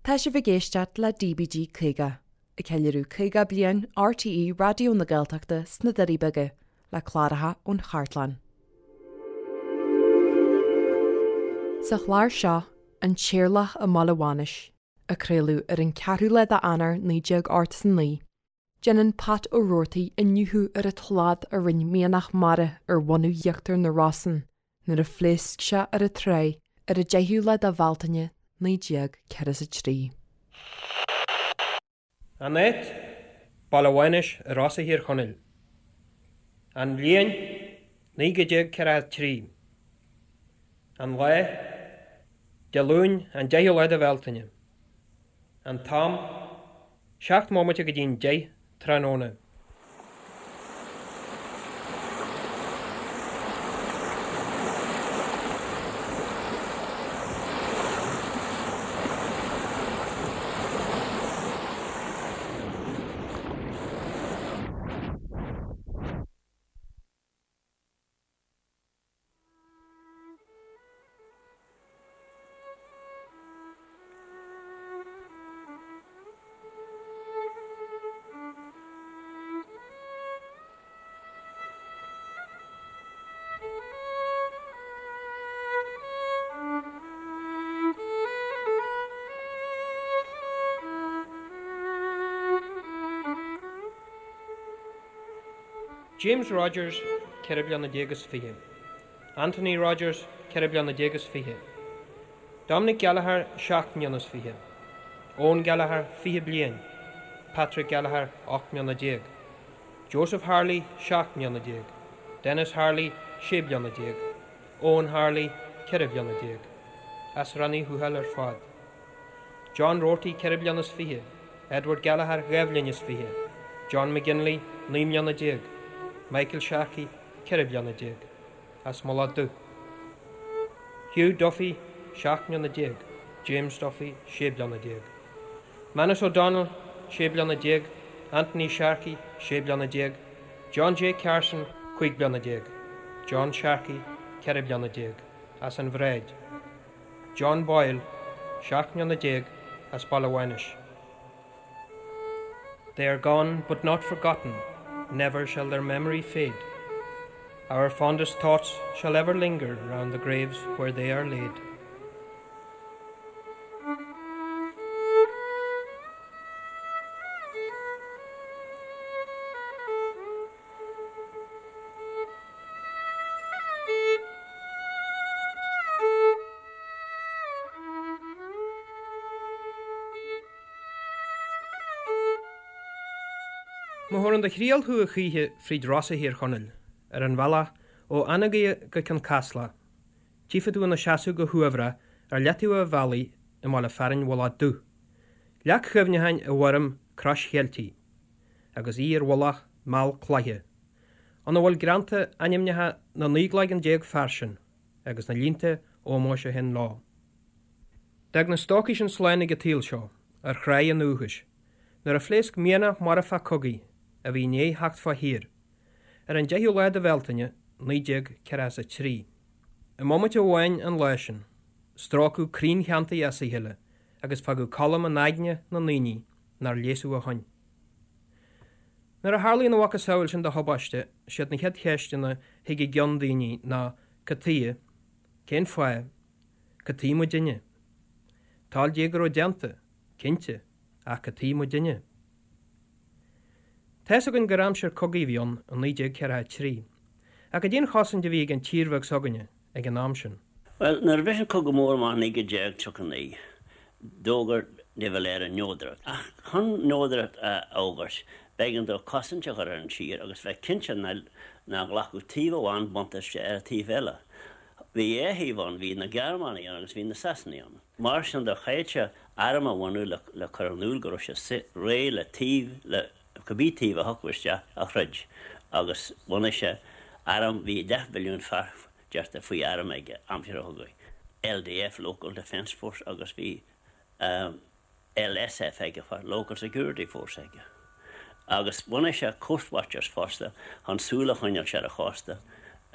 Tá sibh ag éisteacht le DBG 50, ag ceiliúradh 50 bliain RTÉ Raidió na Gaeltachta sna Doirí Beaga, le cláracha ón chartlann. Sa chlár seo, An tÉirleach i mBaile Mhánais, a craoladh ar an 4ú lá d'Eanáir 1989, déanann Pat Ó Roarty iniúchadh ar an tslad a rinne mianach mara ar bhunadh íochtar na Rosann nuair a phléasc sé ar an tráigh ar an 10ú lá de Bhealtaine 1943. An áit, Baile Mhánais i Rosa Thír Chonaill. An bhliain, 1943. An lá, Dé Luain, an 10ú lá de Bhealtaine. An t-am, 7 mbomaite go dtí'n 10 tráthnóna. James Rogers, 14 bliana is 20. Anthony Rogers, 14 bliana is 20. Dominic Gallagher, 7 mbliana is 20. Eoin Gallagher, 20 bliain. Patrick Gallagher, 18 mbliana. Joseph Harley, 17 mbliana. Denis Harley, 16 bliana. Eoin Harley, 14 bliana. As Rann Uí Thuathail ar fad. John Roarty, 24 bliana is. Edward Gallagher, 2 bhliain is 20. John McGinley, 19 mbliana. Michael Sharkey, 14 bliana. As Mullach Dubh. Hugh Duffy, 17 mbliana. James Duffy, 16 bliana. Manus O'Donnell, 16 bliana. Anthony Sharkey, 16 bliana. John J. Carson, 15 bliana. John Sharkey, 14 bliana. As an Bhráid. John Boyle, 17 mbliana, as Baile Mhánais. They are gone but not forgotten, never shall their memory fade. Our fondest thoughts shall ever linger round the graves where they are laid. Má thabharann do thriall thú a choíche fríd Rosa Thír Chonaill, ar an bhealach ó Anagaire go Cionn Caslach, tchífidh tú ina seasamh go huaibhreach ar leataobh an bhealaigh i mbaile fearainn Mhullach Dubh, leac chuimhneacháin i bhfoirm crois Cheiltigh, agus í ar mhullach meall cloiche. ina bhfuil greanta ainmneacha na 19 gcloigeann fear sin agus na línte ómóis a théann leo. D'fhág na stócaigh sin slán ag an tsaol seo, ar thráigh a ndúchais, nuair a phléasc mianach marfach cogaidh a bhí i ndiaidh theacht fá thír, ar an 10ú lá de Bhealtaine, 1943. I mbomaite amháin an lá sin, stróiceadh crainn theanntaí as a chéile agus fágadh colm in aigne na ndaoine nár leigheasadh ó shoin. Nuair a tharlaíonn a mhacasamhail sin de thubaiste, siad na chéad cheisteanna thig i gceann daoine ná, cad tuighe? Cén fáth? Cad tuighe muidinne? Toil Dé go raibh déanta, cinnte, ach cad tuighe muidinne? Tá's againn gur aimsir cogaidh a bhí ann i 1943, ach cad é an chosaint a bhí ag an tír bheag s'againne ag an am sin? Bhuel, nuair a bhris an Cogadh Mór amach i 1939, d'fhógair de Valera neodracht. Ach chun neodracht a fhógairt, b'éigean dó cosaint a chur ar an tír agus bheith cinnte nach nglacfadh taobh amháin buntáiste ar an taobh eile. Bhí dhá thaobh ann, bhí na Gearmánaigh ann agus bhí na Sasanaigh ann. Mar sin de, chaithfeadh sé arm a bhunú le cur in iúl go raibh sé réidh le taobh le cibé taobh a thiocfadh isteach a throid agus bhunaigh sé arm, bhí leathmhilliún fear deirtear faoi arm aige aimsir an chogaidh, LDF, Local Defence Force, agus bhí LSF aige, Local Security Force aige. Agus bhunaigh sé Coast Watchers fosta chun súil a choinneáil ar an chósta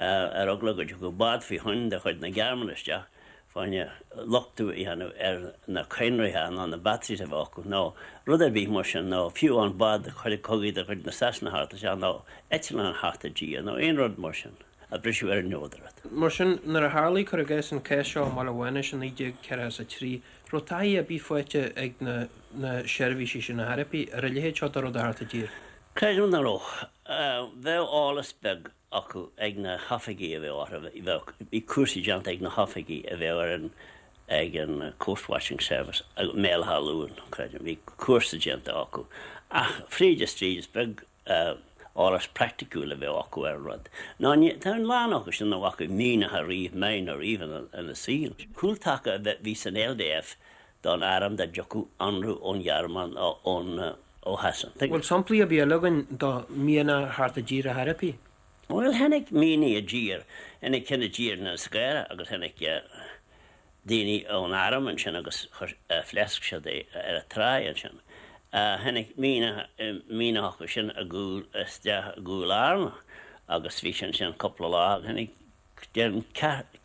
ar eagla go dtiocfadh bád faoi thoinn de chuid na Gearmáine isteach. Fá choinne lochtú a dhéanamh ar na cadhnraithe ná na batteries a bheadh acu nó rud ar bith mar sin nó fiú amháin bád cogaidh de chuid na Sasana theacht isteach nó eitleán theacht i dtír nó aon rud mar sin a bhriseadh ar an neodaireacht. Mar sin, nuair a tharlaigh, cuir i gcás, an cás seo i mBaile Mhánais i 1943, raibh taithí ar bith faighte ag na na seirbhísí sin ar chor ar bith ar a leithéid seo de rud a theacht i dtír? Creidim nach raibh. Bheadh eolas beag acu ag na hoifigigh a bheadh orthu, bheadh, bhí cúrsaí déanta ag na hoifigigh a bheadh ar an, ag an Coast Watching Service i mBéal Átha Luain, creidim, bhí cúrsa déanta acu. Ach fríd is tríd is beag eolas praiticiúil a bheadh acu ar an rud. Ná ní, tá a lán acu sin nach bhfaca mianach ariamh, mine ariamh ina, ina saol. Cúltaca a bhí san LDF don arm dá dtiocfadh ionradh ón Ghearmáin nó ón, ó Shasana. Bhfuil samplaí ar bith eile againn de mhianach a theacht i dtír ar chor ar bith? Bhuel, tháinig mianaigh i dtír, tháinig ceann i dtír in Inis Scáire agus tháinig daoine ón arm ansin agus phléasc siad é ar an tráigh ansin. Tháinig mianach, mianach acu sin i gcúl, isteach i gCúil Fhearna agus bhí sé ansin cúpla lá. Tháinig Déarfainn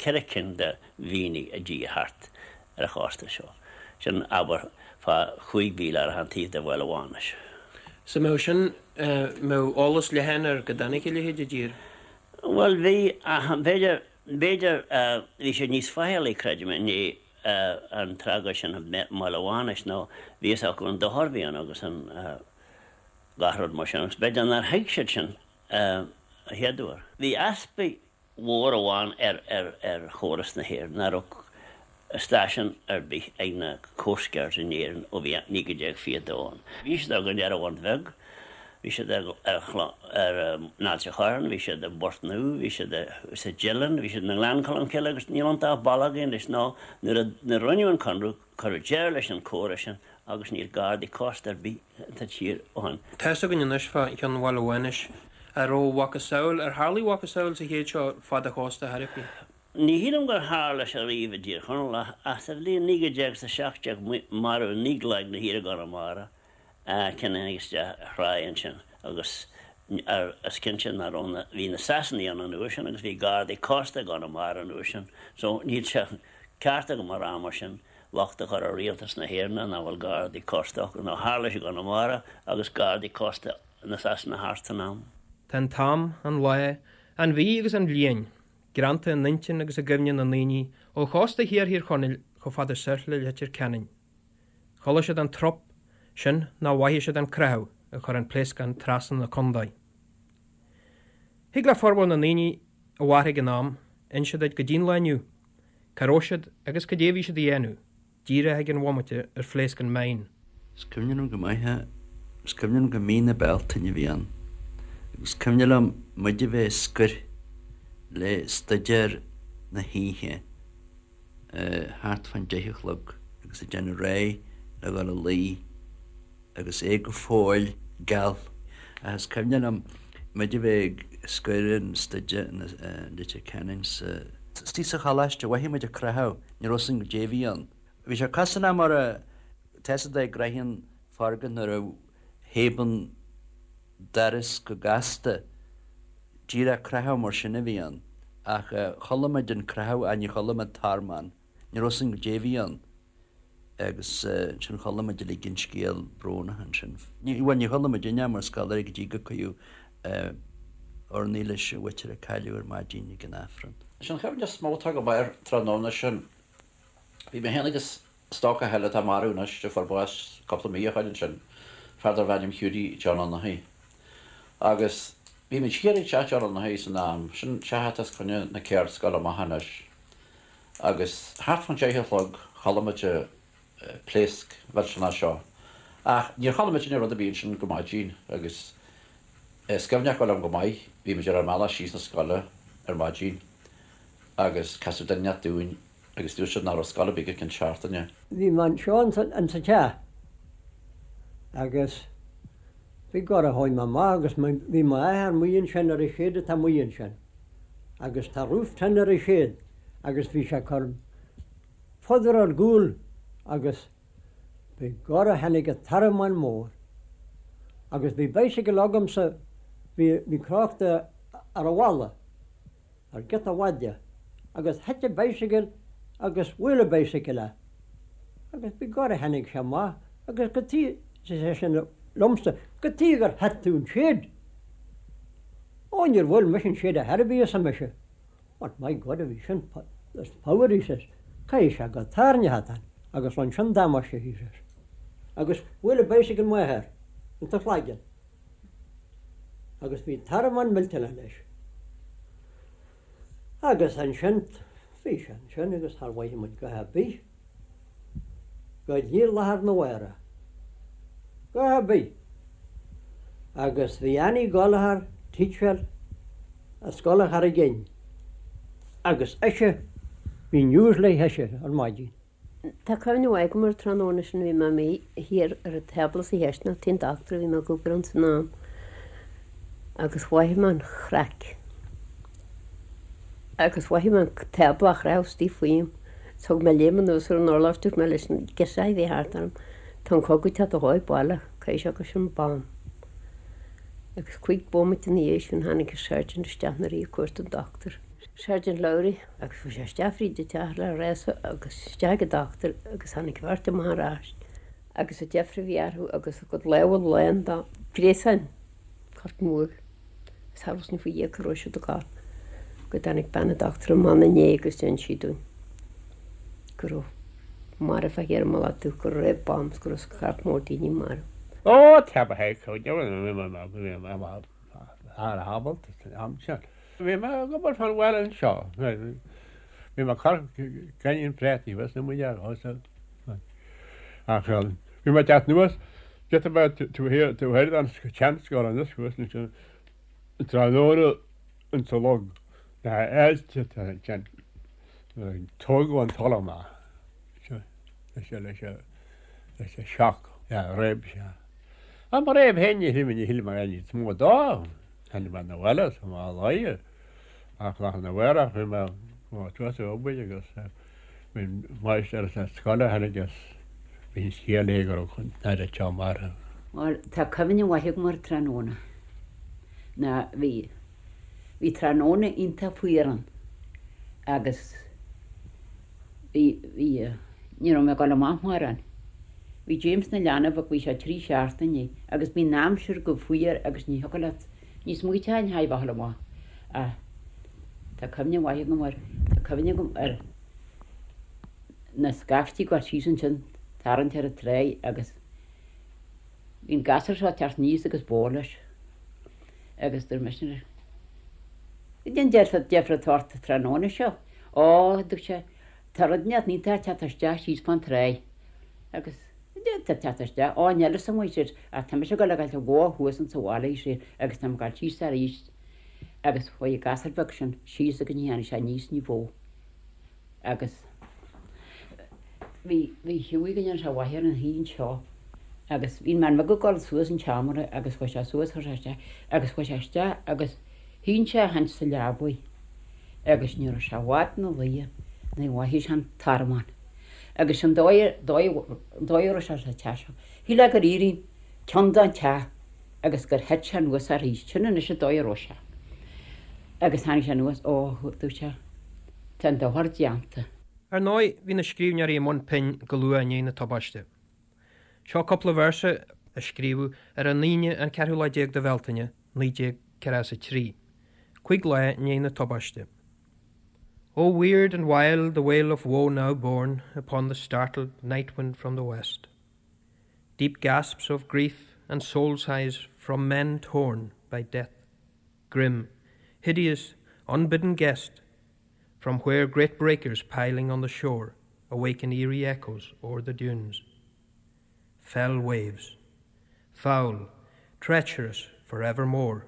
4 cinn de mhianaigh i dtír thart ar an chósta seo. Sin abair fá chúig mhíle ar achan taobh de Bhaile Mhánais. So mbeadh sin, mbeadh eolas leathan air go dtáinig a leithéid i dtír? Bhuel bhí, ach b'fhéidir, b'fhéidir, bhí siad níos faichillí, creidim, i ndiaidh an tragóid sin i mBaile Mhánais nó bhí fhios acu an dochar a bhí ann agus an gach rud mar sin agus b'fhéidir nár thuig siad sin a chéaduair. Bhí easpa mhór amháin ar chóras na hÉireann, nach raibh stáisiún ar bith ag na Coast Guards in Éirinn ó bhí 1922 ann. Bhí siad againn ar an Bhun Bheag, bhí siad ar in Ailt a' Chorráin, bhí siad i bPort Nua, bhí siad sa Deileann, bhí siad i nGleann Cholm Cille agus níl iontu ach baile againn anois nó nuair a rinneadh an Conradh Cuireadh deireadh leis an chóras sin agus níl gardaí cósta ar bith sa tír ó shin. Tá's againn anois fá cheann Bhaile Mhánais. An raibh a mhacasamhail, ar tharlaigh a mhacasamhail sa chéad seo fad an chósta ar chor ar bith? Ní shílim gur tharla sé riamh i dTír Chonaill ach sa bhliain 1917 maraíodh Niocláigh na hÍre i gConamara. Ceann a tháinig isteach ar thráigh ansin agus is cinnte nach raibh na, bhí na Sasanaigh ann an uair sin agus bhí gardaí cósta i gConamara an uair sin so níl sé ceart agam a rá mar sin locht a chur ar rialtas na hÉireann nach bhfuil gardaí cósta acu nó tharla sé i gConamara agus gardaí cósta na Sasana thart san am. Tá an t-am, an lá, an mhí agus an bhliain greanta in intinn agus i gcuimhne na ndaoine ó chósta thiar Thír Chonaill chomh fada soir le Leitir Ceanainn. Chuala siad an trup, sin nó mhothaigh siad an creathadh a chuir an pléascán trasna na condae. Thig le formhór na ndaoine a mhair ag an am inse duit go dtí'n lá inniu cá raibh siad agus cad é a bhí siad a dhéanamh díreach ag an bhomaite ar phléasc an mine. Is cuimhin liom go maith é. Is cuimhin liom gur mí na Bealtaine a bhí ann. Agus is cuimhin liom muid a bheith ag scoir le staidéar na hoíche. thart fán deich a chlog agus ag déanamh réidh le dhul a luí agus é go fóill geal. Ach is cuimhin liom muid a bheith ag scoir an staidéar in Leitir Ceanainn sa. Istigh sa choláiste, mhothaigh muid an croitheadh, ní raibh 'fhios againn goidé a bhí ann. Bhí sé cosúil le mar a, tá 'fhios a'd a gcroitheann foirgneamh nuair a thaobann doras go gasta. Díreach croitheadh mar sin a bhí ann. Ach chuala muid an croitheadh ach ní chuala muid tormán. Ní raibh 'fhios againn goidé a bhí ann. Agus ansin chuala muid uilig an scéal brónach ansin. Bhuel, ní chuala muidinne mar scoláirí go dtí gur cuireadh urnaí leis an mhuintir a cailleadh ar maidin ag an Aifreann. Is an chuimhne is mó atá agam air tráthnóna sin, bhí mé féin agus Stócach eile atá marbh anois, a fuair bás cúpla mí ó shoin ansin, fear darbh ainm Hughie John Fhionnachaidh. Agus bhí muid thiar ag teach John Fhionnachaidh san am, sin teach atá os coinne na ceardscoile amach anois. Agus thart fán deich a chlog chuala muid an pléasc mhillteanach seo. Ach níor chuala muidinne rud ar bith ansin go maidin agus is cuimhneach liom go maith, bhí muid ar ár mbealach síos na scoile ar maidin agus casadh duine inteacht dúinn agus dúirt siad nach raibh scoil ar bith go ceann seachtaine. Bhí mé anseo in sa teach agus begorra chuaigh mé amach agus bhí m'athair amuigh ansin ar an shed atá amuigh ansin agus tá roof tin ar an shed agus bhí sé ag cur fodar ar gcúl agus begorra tháinig an tormán mór agus bhí bicycle agamsa bhí bhí crochta ar an bhalla. ar giota mhaide agus thit an bicycle. agus bhuail an bicycle é agus begorra tháinig sé amach agus cad chuige, ar seisean liomsa, cad chuige gur thit tú an shed? Ó níor bhuail mise an shed ar chor ar bith arsa mise. But my God a bhí sin there's power he says, caithfidh sé gur tairneach atá ann agus rinne sin damáiste he says. Agus bhuail an bicycle m'athair insa chlaigeann agus bhí tormán millteanach leis. Agus ansin bhí sé ansin agus char mhothaigh muid a dhath ar bith go dtí lá arna mhárach. A dhath ar bith. Agus bhí Annie Gallagher, teacher i Scoil an Charraig Fhinn agus ise, bhí news léi ise ar maidin. Tá cuimhne mhaith agam ar an tráthnóna sin, bhí mé amuigh thiar ar an tábla sa chisteanach, tigh an dochtúra, bhí mé ag obair ann san am, agus mhothaigh mé an chraic agus mhothaigh mé an tábla á chroitheadh istigh faoim. Thug mé léim anuas ar an urlár, dúirt mé leis na girseachaí a bhí thart orm, tá an cogadh ag teacht a dhóigh baile, caithfidh sé gur sin bomb. Agus cuig bomaite ina dhiaidh sin tháinig an sergeant isteach nuair a bhí ag cuartú an dochtúir. Sergeant Lowry, agus chuaigh sé isteach fríd an teach le rása agus isteach ag an dochtúir agus tháinig an bheirt amach ar ais agus an deifir a bhí orthu agus a gcuid lámha lán de ghréasáin corp mór agus cha raibh faoi Dhia cá raibh siad ag gabháil go dtáinig bean an dochtúra amach ina ndiaidh agus d'inis sí dúinn go raibh marbh thiar i mBaile Átha Dubh go raibh bombs go raibh scairt mór daoine marbh. Ó, tá ba ábalta san am sin. Bhí mé ag obair fán bhaile anseo. Bhí mé ag cur gainín préataí thuas na muineál thuas. Ach bhí mé ag teacht anuas, giota beag taobh thiar taobh thoir den tseanscoil anuas thuas ansin tráthnóna insa log na h-aillte ansin. Tógadh an talamh amach leis leis leis an shock réab sé. Ach mo réab féin ní shíl mé ní shíl mé níos mó dó. Tháinig mé 'na bhaile sa mhá lae ach lá arna mhárach bhí mé suas ag obair agus bhí an máistir sa scoil a tháinig agus bhí an scéal léi go raibh an tAire Teo marbh. Bhuel, tá cuimhne mhaith agam ar tráthnóna ná bhí, bhí tráthnóna iontach fuar ann agus bhí, bhí, ní raibh mé ag dul amach mórán. Bhí James 'na leanbh ach bhí sé trí seachtainí agus bhí an aimsir go fuar agus ní thiocfadh leat, ní smaoiteofá ar a bheith ag dul amach ach tá cuimhne mhaith agam air, tá cuimhne agam ar na scaifte ag dul síos ansin tarraingt ar an tráigh agus bhí an gasúr seo ag teacht aníos agus bó leis agus dúirt mise leis, Cad é an deifir atá ort tráthnóna seo? Ó, dúirt sé, Tá rud inteacht iontach ag teacht isteach síos fán tráigh agus tá teacht isteach, ó níl fhios agam sé ach tá mise ag dul ag fáilt an bhó thuas insa bhaile ar sé agus tá mé ag dul síos arís agus chuaigh an gasúr beag sin síos agus ní tháinig sé aníos ní bhó agus bhí bhí Hughie go ndéana sé mhaith air ina shuí anseo agus bhí an bhean bheag ag dul suas an tseomra agus chuaigh sé suas chuir sé isteach agus chuaigh sé isteach agus shín sé a chaint sa leabaidh. agus ní raibh sé i bhfad 'na luighe nuair a mhothaigh sé an tormán. Agus an dóigh an dóigh a raibh sé sa teach seo, shílfeá gur éirigh ceann den teach agus gur thit sé anuas arís. Sin anois an dóigh a raibh sé. Agus tháinig sé anuas, ó, dúirt sé, tá an dochar déanta. Ar ndóigh, bhí na scríbhneoirí i mbun pinn go luath i ndiaidh na tubaiste. Seo cúpla véarsa a scríobhadh ar an Aoine an ceathrú lá déag de Bhealtaine, 1943, cuig lá i ndiaidh na tubaiste. Oh weird and wild the wail of woe now borne upon the startled night wind from the west. Deep gasps of grief and soul sighs from men torn by death. Grim, hideous, unbidden guest, from where great breakers piling on the shore awaken eerie echoes o'er the dunes. Fell waves, foul, treacherous for evermore,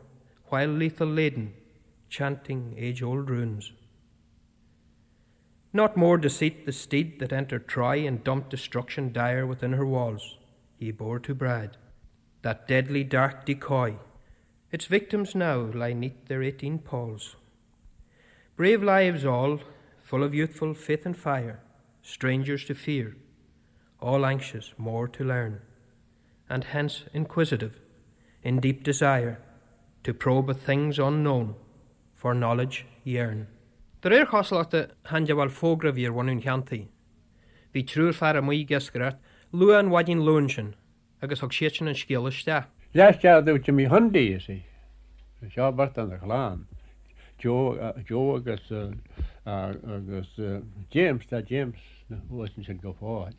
while lethal laden, chanting age-old runes. Not more deceit the steed that entered Troy and dumped destruction dire within her walls, he bore to bride, that deadly dark decoy, its victims now lie neath their 18 palls. Brave lives all, full of youthful faith and fire, strangers to fear, all anxious more to learn, and hence inquisitive, in deep desire, to probe at things unknown, for knowledge yearn. De réir chosúlachta, chan de bhaill fógra a bhí ar bhunadh an cheantaí. Bhí triúr fear amuigh ag iascaireacht luath an mhaidin Luain sin agus thug siadsan an scéala isteach. Leathscéal do Jimmy Hundy is é seo beirt dena chlann, Joe Joe agus agus James, tá James thuas ansin go fóill.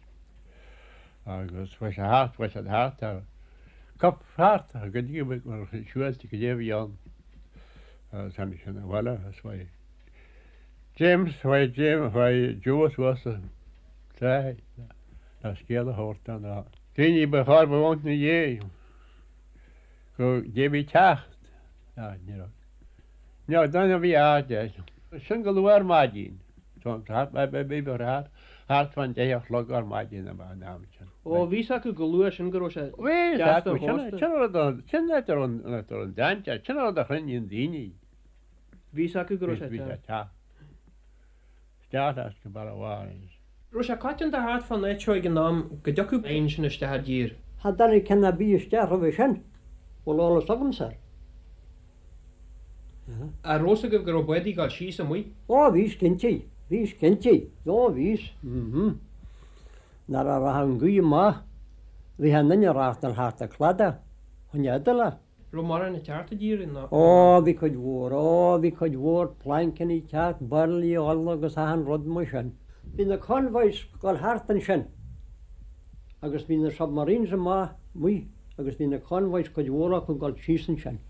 Agus chuaigh sé thart, chuaigh siad thart ar cop thart go dtí go siúilte go dtí a bhí ann. Agus tháinig siad abhaile agus chuaigh James, chuaigh James, chuaigh Joe suas an tráigh le scéal a thabhairt do na daoine ba chóir ba mhó ina dhiaidh go dté a bhí ag teacht. Ní raibh. Ní raibh duine a bhí aird air. Sin go luath ar maidin. Thart thart fán deich a chlog ar maidin ab ea an am sin. Ó, bhí 's acu go luath sin go raibh sé deas don chósta. Sin an rud, sin áit a raibh an dainséar, sin an rud a chruinníonn daoine. Bhí 's acu go raibh sé Bhí sé teacht. Isteach leis go Baile Mhánais. Raibh sé coitianta thart fán áit seo ag an am go dtiocfadh éin sin isteach i dtír. Cha dtáinig ceann ar bith isteach roimhe sin, bhfuil eolas agamsa air. An raibh 's agaibh go raibh bádaí ag dul síos amuigh? Ó, bhíos cinnte, bhíos cinnte, ó bhíos, mhm. Nuair a rachadh an ghaoth amach, bhí an duine ag reáchtáil thart an cladach, chun Iodáile. Raibh mórán ag teacht i dtír ná? Ó, bhí cuid mhór, ó, bhí cuid mhór plainceanna ag teacht, bairillí ola agus achan rud mar sin. Bhí na convoys ag dul thart ansin agus bhí na submarines amach amuigh agus bhí na convoys cuid mhór acu ag dul síos ansin.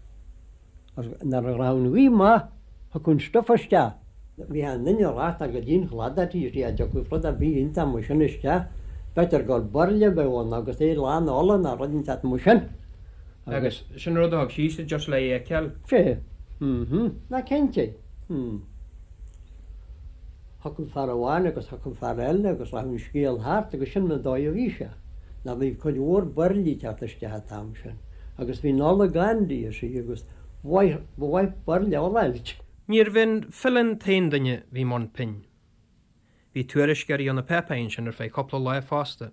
Agus nuair a rachadh an ghaoth amach, thiocfadh an stuif isteach. Bhí an duine ag reáchtáil go dtí an chladach taobh istigh, dá dtiocfadh rud ar bith iontach mar sin isteach, b'fhéidir gur bairille a bheadh ann agus é lán ola nó rud inteacht mar sin. Agus sin rud a thug síos just le é a fheiceáil. Sea. Mm-hm. Ná cinnte. Mm. Thiocfadh fear amháin agus thiocfadh fear eile agus rachadh an scéal thart agus sin an dóigh a bhí sé. Ná bhí cuid mhór bairillí ag teacht isteach an t-am sin agus bhí an ola gann di you see agus ba mhaith, ba mhaith bairille ola a fháilt. Níorbh é an file an t-aon duine a bhí i mbun pinn. Bhí tuairisceoirí ó na páipéir ansin ar feadh cúpla lá fosta,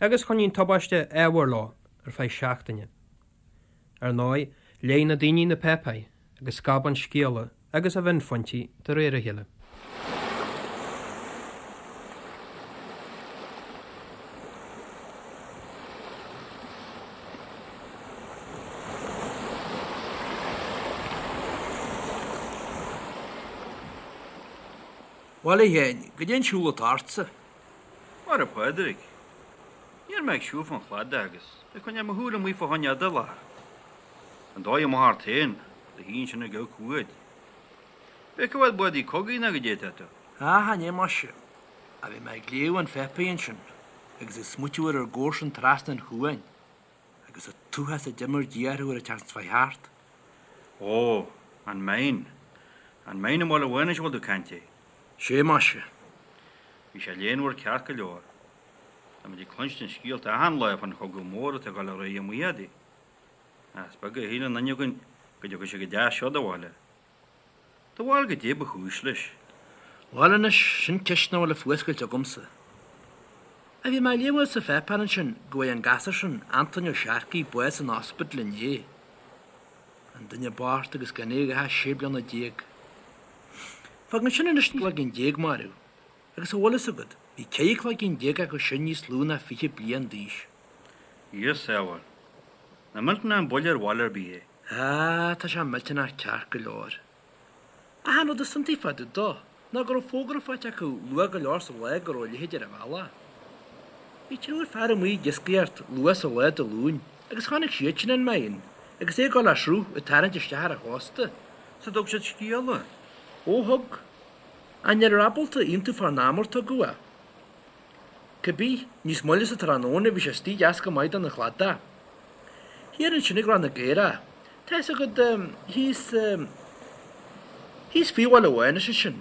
agus choinnigh an tubaiste ábhar leo ar feadh seachtaine. Ar ndóigh, léigh na daoine na páipéir agus scab an scéala agus a mhionphointí de réir a chéile. Bhuel, a Sheáin, goidé an siúl atá ortsa? Mhair a Phádraig. Ní raibh mé ag siúl fán chladach agus ag coinneáil mo shúil amuigh fá choinne idéalach. An dóigh amach ort féin, do shuí ansin ag amharc uait. B'fhéidir go bhfuil bádaí cogaidh ná goidé atá tú. Á, chan ea muise. Ach bhí mé ag léamh an pháipéir ansin agus ag smaoitiú ar ár gcomharsain trasna an chuain agus an t-uafás a d'imir Dia orthu ar an tseachtain seo chuaigh thart. Ó, an mine. An mine i mBaile Mhánais a bhfuil tú ag caint air. Sé muise. Bhí sé léanmhar ceart go leor. Tá muid ag cluinstin scéalta achan lá fán chogadh mór atá ag dul ar aghaidh amuigh fhadaidh. Ach is beag a shíl aon duine againn go dtiocfadh sé go dtí seo do bhaile. Do bharúil goidé ba chúis leis. Bhuel anois, sin ceist nach bhfuil a fuascailt agamsa. Ach bhí mé ag léamh sa pháipéar ansin go bhfuair an gasúr sin, Antoine Ó Searcaigh, bás san ospidéal inné. An duine bocht agus gan é ach 16 bliana. Fágann sin anois 19 cloigeann marbh, agus an bhfuil fhios agat, bhí 14 cloigeann acu sin níos lú ná 20 bliain d'aois. Dia sábháil. Nach millteanach an buille ar bhaile ar bith é. Á, tá sé millteanach ceart go leor. Ach an rud is iontaí fá dtaobh dó ná go raibh fógra faighte acu luath go leor sa lá go raibh a leithéid ar an bhealach. Bhí triúr fear amuigh ag iascaireacht luath sa lá Dé Luain agus chonaic siad sin an mine agus é ag dul le sruth ag tarraingt isteach ar an chósta. Sea thug siad scéala? Ó thug. Ach ní rabhadar ábalta aontú fán am ar tugadh é. Cibé, níos moille sa tráthnóna bhí sé istigh deas go maith don chladach. Thiar ansin ag Ráth na gCaorach, tá fhios agat, thíos, thíos faoi Bhaile Mhánais ansin.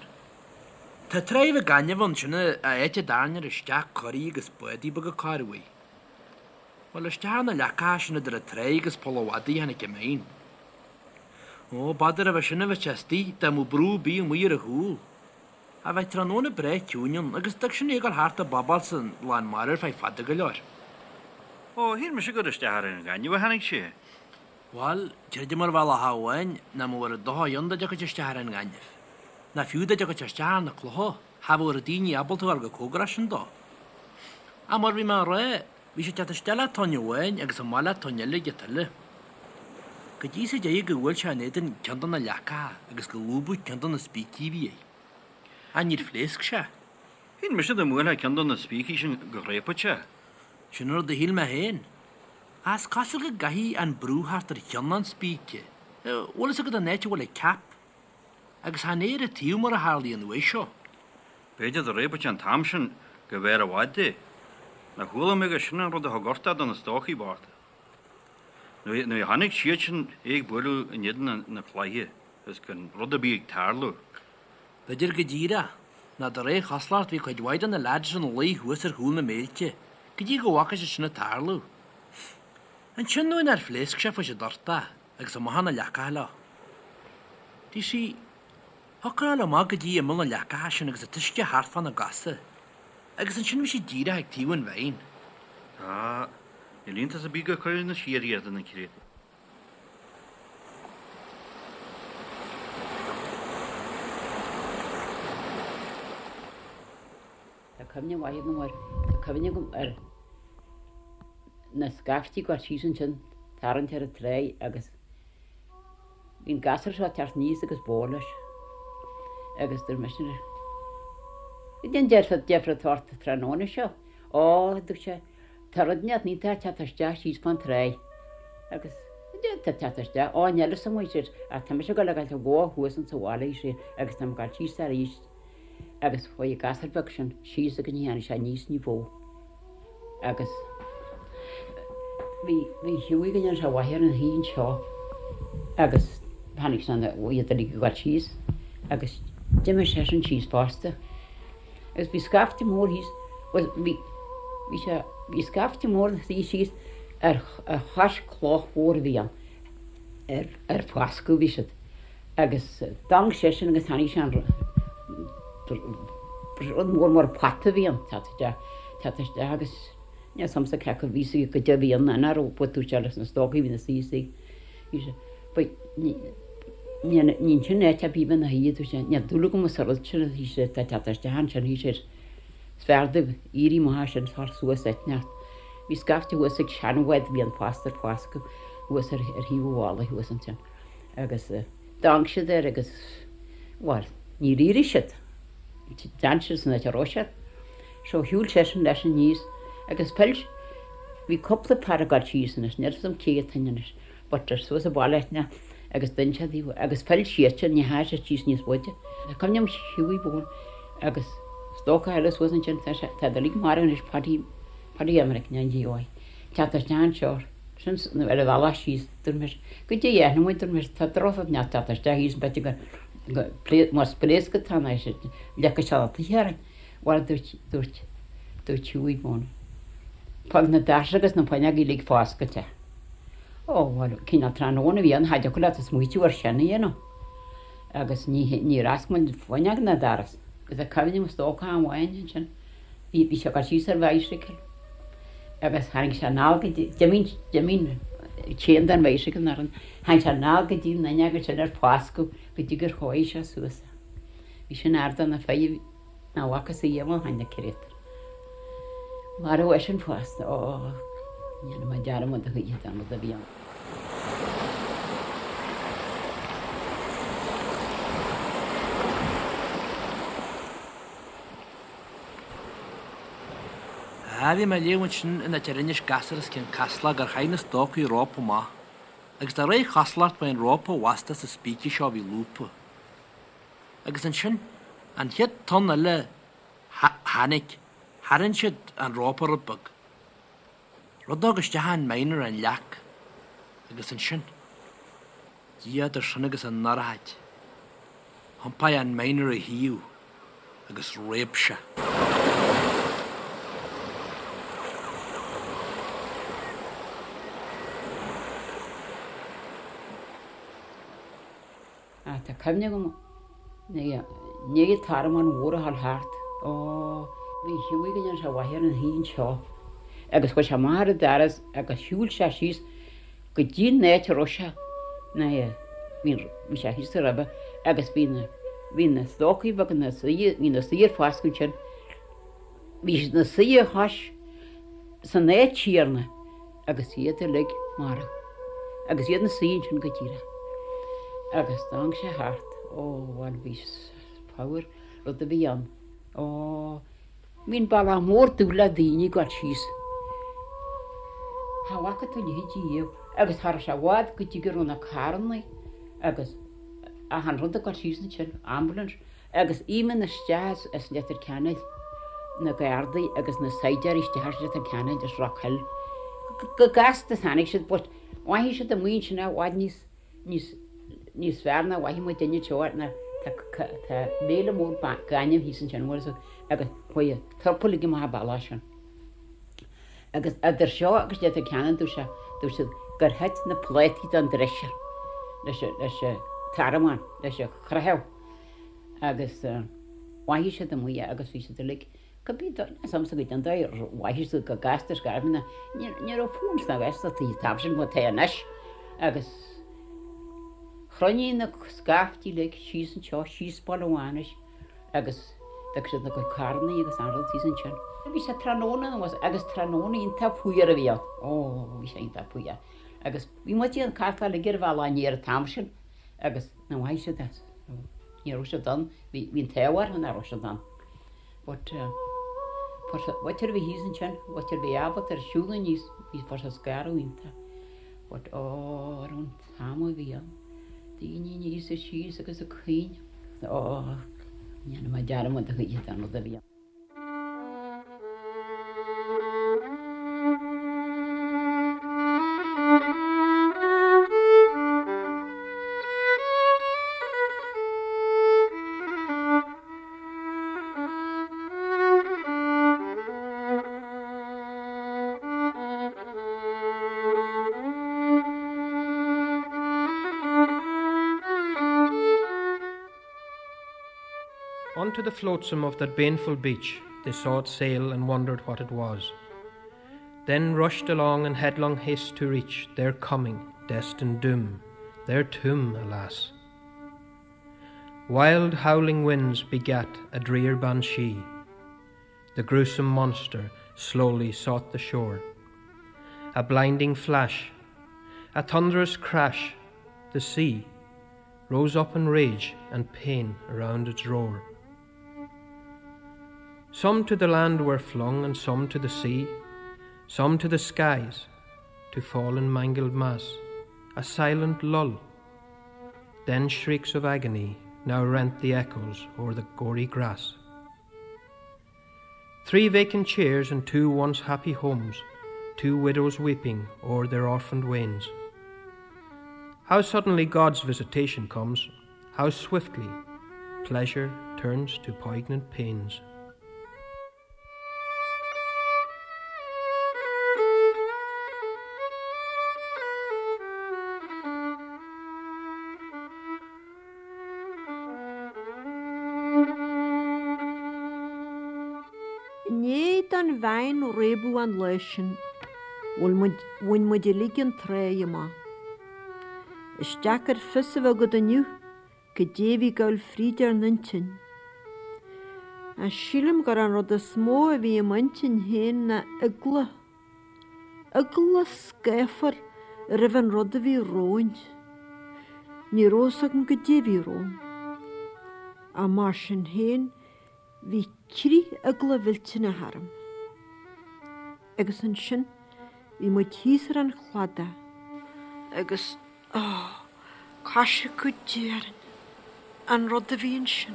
Tá tráigh bheag gainimh ann sin an áit a dtarraingtear isteach coraí agus bádaí beaga corr uair. Bhuel, isteach ar na leacacha sin idir an tráigh agus Poll an Mhadaidh a tháinig an mine. Ó, b'fhearr roimhe sin a bheadh sé istigh dá mbeadh brú ar bith amuigh ar a chúl. Ach bheadh tráthnóna breá ciúin ann agus d'fhág sin é ag dul thart ag bobáil san lán mara ar feadh fada go leor. Ó, shíl mise gur isteach ar an ghaineamh a tháinig sé. Bhail, creidim ar bhealach amháin nach mbeadh ar an dtoitheach ann dá dtiocfadh sé isteach ar an ngaineamh. Ná fiú dá dtiocfadh sé isteach ar na clocha, cha bheadh daoine ábalta a ghabháil chomh cóngarach sin dó. Ach mar bhí mé a rá, bhí sé ag teacht isteach le tonn amháin agus amach le tonn eile ag an tuile. Go dtí sa deireadh gur bhuail sé in éadan ceann de na leacacha agus gur lúbadh ceann de na spící a bhí air. Ach níor phléasc sé. Shíl mise dá mbuailfeá ceann de na spící sin go réabfadh sé. Sin an rud a shíl mé féin. Ach is cosúil go gcaithfidh an brú theacht ar cheann an spíce. Bhfuil fhios agat an áit a bhfuil an cap? Agus chan é ar an taobh mar a tharlaíonn an uair seo. B'fhéidir dá réabfadh sé an t-am sin go mb'fhearr i bhfad é. Nár chuala mé gur sin an rud a thug uchtach do na stócaigh bochta. Nuair a chonaic siad sin é ag bualadh in éadan na cloiche is gan rud ar bith ag tarlú. B'fhéidir go díreach, nó de réir chosúlacht bhí cuid mhaith de na leaids ina luí thuas ar chúl na mbéilte go dtí go bhfaca siad sin ag tarlú. Ansin nuair nár phléasc sé fuair siad uchtach agus amach na leacacha leo. Do you see, thiocfadh a ghabháil amach go dtí imeall na leacacha sin agus an t-uisce thart fána gcosa, agus ansin bhí siad díreach ag taobh an mhine. Á, níl iontas ar bith gur cuireadh na siar iad na créatúir. Tá cuimhne mhaith agam air. Tá cuimhne agam ar na scaifte ag gabháil síos ansin, tarraingt ar an tráigh agus bhí an gasúr seo ag teacht aníos agus bó leis agus dúirt mise leis, Goidé an deifir atá ort tráthnóna seo? Ó, dúirt sé, tá rud inteacht iontach ag teacht isteach síos fán tráigh agus goidé atá ag teacht isteach? Ó, níl fhios agam, ar sé, ach tá mise ag gabháil a fhágáilt an bhó thuas insa bhaile, ar sé, agus tá mé ag gabháil síos arís. Agus chuaigh an gasúr beag sin síos agus ní tháinig sé aníos ní ba mhó. Agus bhí, bhí Hughie go ndéana sé mhaith air ina shuí anseo agus tháinig sé na, iad uilig ag gabháil síos agus d'imigh seisean síos fosta. Agus bhí scaifte mór thíos, bhuel bhí, bhí sé, bhí scaifte mór ina suí síos ar, ar chois cloch mhór a bhí ann, ar, ar foscadh a bhí siad. Agus d'amharc seisean agus tháinig sé an rud mór mar pota a bhí ann, teacht isteach, teacht isteach agus níl fhios a'msa cé acu a bhí sí goidé a bhí ann ná raibh botún sé leis na stócaigh a bhí ina suí istigh. Bhí sé, but ní, ní, ní ansin áit ar bith ina shuí, dúirt sé, níl dúil agam sa rud sin, bhí sé, tá teacht isteach ansin, bhí sé, is fearr daoibh éirí amach as sin, tar suas eitneacht. Bhí scaifte thuas ag seanbhád a bhí ann fosta ar foscadh thuas ar, ar thaobh an bhalla thuas ansin. Agus d'amharc siad air agus, bhuel, níor éirigh siad. D'fhan siad san áit a raibh siad. So shiúil seisean leis aníos agus phill, bhí cúpla fear ag dul síos anois, níl 'fhios a'm cé hiad féin anois, but ar suas an baile eithne agus d'fhan siad taobh agus phill siadsan, ní theachaigh siad síos níos faide. Tá cuimhne agam Hughie Bone agus stócach eile suas ansin, tá sé, tá siad uilig marbh anois, Paddy, Paddy Emerick, ná G.Y. Teacht isteach anseo. Sin ar a bhealach síos, dúirt mise, goidé a dhéanfaidh muid, dúirt mise, tá drochrud inteacht teacht isteach thíos b'fhéidir go, go, más pléasc atá ann, leagfaidh sé na tithe orainn. Bhuel, dúirt, dúirt, dúirt Hughie Bone, fág na doirse agus na fuinneoga uilig foscailte. Ó, bhuel, cineál tráthnóna a bhí ann, cha dtiocfadh leat smaoitiú ar sin a dhéanamh. Agus ní, níor oscail muid fuinneog ná doras. Agus tá cuimhne agam stócach amháin ansin, bhí, bhí sé ag dul síos ar bhicycle. Agus tháinig sé anall go dtí, d'imigh, d'imigh chain den bhicycle nach raibh, tháinig sé anall go dtí an fhuinneog ansin ar foscadh go dtí gur chóirigh sé suas é. Bhí sin ard do na fir nach bhfacthas riamh ó shin na créatúir. Marbhadh eisean fosta, ó, ní dhéanfaidh mé dearmad a choíche den rud a bhí ann. Á, bhí mé ag léamh ansin in áit ar inis gasúr as Cionn Caslach gur chaith na stócaigh rópa amach, agus de réir chosúlacht ba é an rópa a bhfasta sa spíce seo a bhí lúbtha. Agus ansin, an chéad tonn eile a tháinig, tharraing siad an rópa rud beag. Rud a thug isteach an mine ar an leac, agus ansin, Dia idir sinn agus an ndorchaid, thiompaigh an mine ar a thaobh agus réab sé. Ach tá cuimhne agam i ndiaidh an tormán mhór a dhul thart, ó, bhí Hughie go ndéana sé mhaith air ina shuí anseo agus chuaigh sé amach ar an doras agus shiúil sé síos go dtí an áit a raibh sé, ná bhí, bhí sé thíos roimhe agus bhí na. Bhí na stócaigh beaga ina suí, bhí ina suí ar foscadh ansin. Bhí siad ina suí a chois san áit chéanna agus iad uilig marbh. Agus iad ina suí ansin go díreach. Agus tháinig sé thart, ó bhuel bhí fabhar rud a bhí ann. Ó, bhí an bealach mór dubh le daoine ag gabháil síos. Cha bhfaca tú a leithéid riamh agus cha raibh sé i bhfad go dtí go raibh na carrannaí agus achan rud ag gabháil síos ansin, ambulance, agus imíonn isteach as Leitir Ceanainn, na Gardaí agus na saighdiúirí isteach as Leitir Ceanainn as Rock Hill. Go gasta is tháinig siad but mhothaigh siad amuigh ansin i bhfad níos níos níos fearr ná mhothaigh muid duine anseo ná tá tá béile mór gainimh thíos ansin bhfuil fhios agat agus chuaigh an turpa uilig amach an bealach sin. Agus idir seo agus Leitir Ceanainn dúirt sé dúirt siad gur thit na plátaí den dresser leis an leis an tarramán leis an chroitheadh agus mhothaigh siad amuigh é agus bhí siad uilig Cibé dóigh, níl a fhios agamsa goidé an dóigh ar mhothaigh siad go gasta is gairbh ní raibh fón sna Gaeltachtaí an t-am sin mar atá anois agus chruinnigh na scaifte uilig síos anseo, síos Baile Mhánais agus d'fhág siad na gcuid carrannaí agus an rud thíos ansin. Bhí sé tráthnóna anuas agus tráthnóna iontach fuar a bhí ann, ó bhí sé iontach fuar agus bhí muid ag carcáil uilig ar an bhealach aniar an t-am sin agus na mhothaigh siad as, ní raibh siad ann, bhí an t-ádh orthu nach raibh siad ann. But mhuintir a bhí thíos ansin, mhuintir a bhí ábalta ar siúl aníos, bhí fuair siad scaradh iontach. But ó, ar an t-am a bhí ann, daoine aníos is síos agus ag caoineadh. Ó, ní dhéanfaidh mé dearmad a choíche den rud a bhí ann. On to the flotsam of that baneful beach they saw it sail and wondered what it was. Then rushed along in headlong haste to reach their coming, destined doom, their tomb, alas. Wild howling winds begat a drear banshee. The gruesome monster slowly sought the shore. A blinding flash, a thunderous crash, the sea rose up in rage and pain around its roar. Some to the land were flung and some to the sea, some to the skies, to fall in mangled mass, a silent lull. Then shrieks of agony now rent the echoes o'er the gory grass. Three vacant chairs and two once happy homes, two widows weeping o'er their orphaned wains. How suddenly God's visitation comes, how swiftly pleasure turns to poignant pains. I ndiaidh don veain réabadh an lá sin, bhain muid uilig an tráigh amach. Is deacair fios a bheith agat inniu Goidé a bhí ag gabháil fríd ár n-intinn. Ach sílim gur an rud is mó a bhí i m'intinn féin ná eagla. Eagla scáfar roimh an rud a bhí romhainn. Ní raibh fhios agam goidé a bhí romham. Ach mar sin féin, bhí crith eagla mhillteanach orm. Agus ansin, bhí muid thíos ar an chladach. Agus. Ó, coisriceadh Dé orainn, an rud a bhí ansin.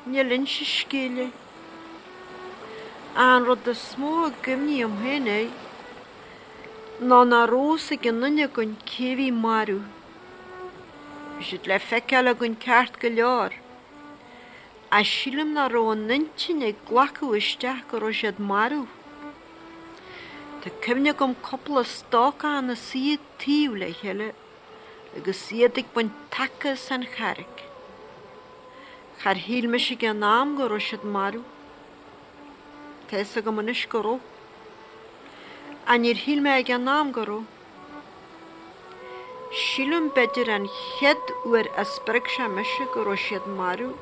Níl inse scéil é. An rud is mó a gcuimhním féin air ná nach raibh fhios ag aon duine againn cé a bhí marbh. Bhí siad le feiceáil againn ceart go leor, ach sílim nach raibh an intinn ag glacadh isteach go raibh siad marbh. Tá cuimhne agam cúpla stócach ina suí taobh le chéile agus iad ag baint taca as an charraig. Char shíl mise ag an am go raibh siad marbh. Tá fhios agam anois go raibh. Ach níor shíl mé ag an am go raibh. Sílim b'fhéidir an chéad uair a spreag sé mise go raibh siad marbh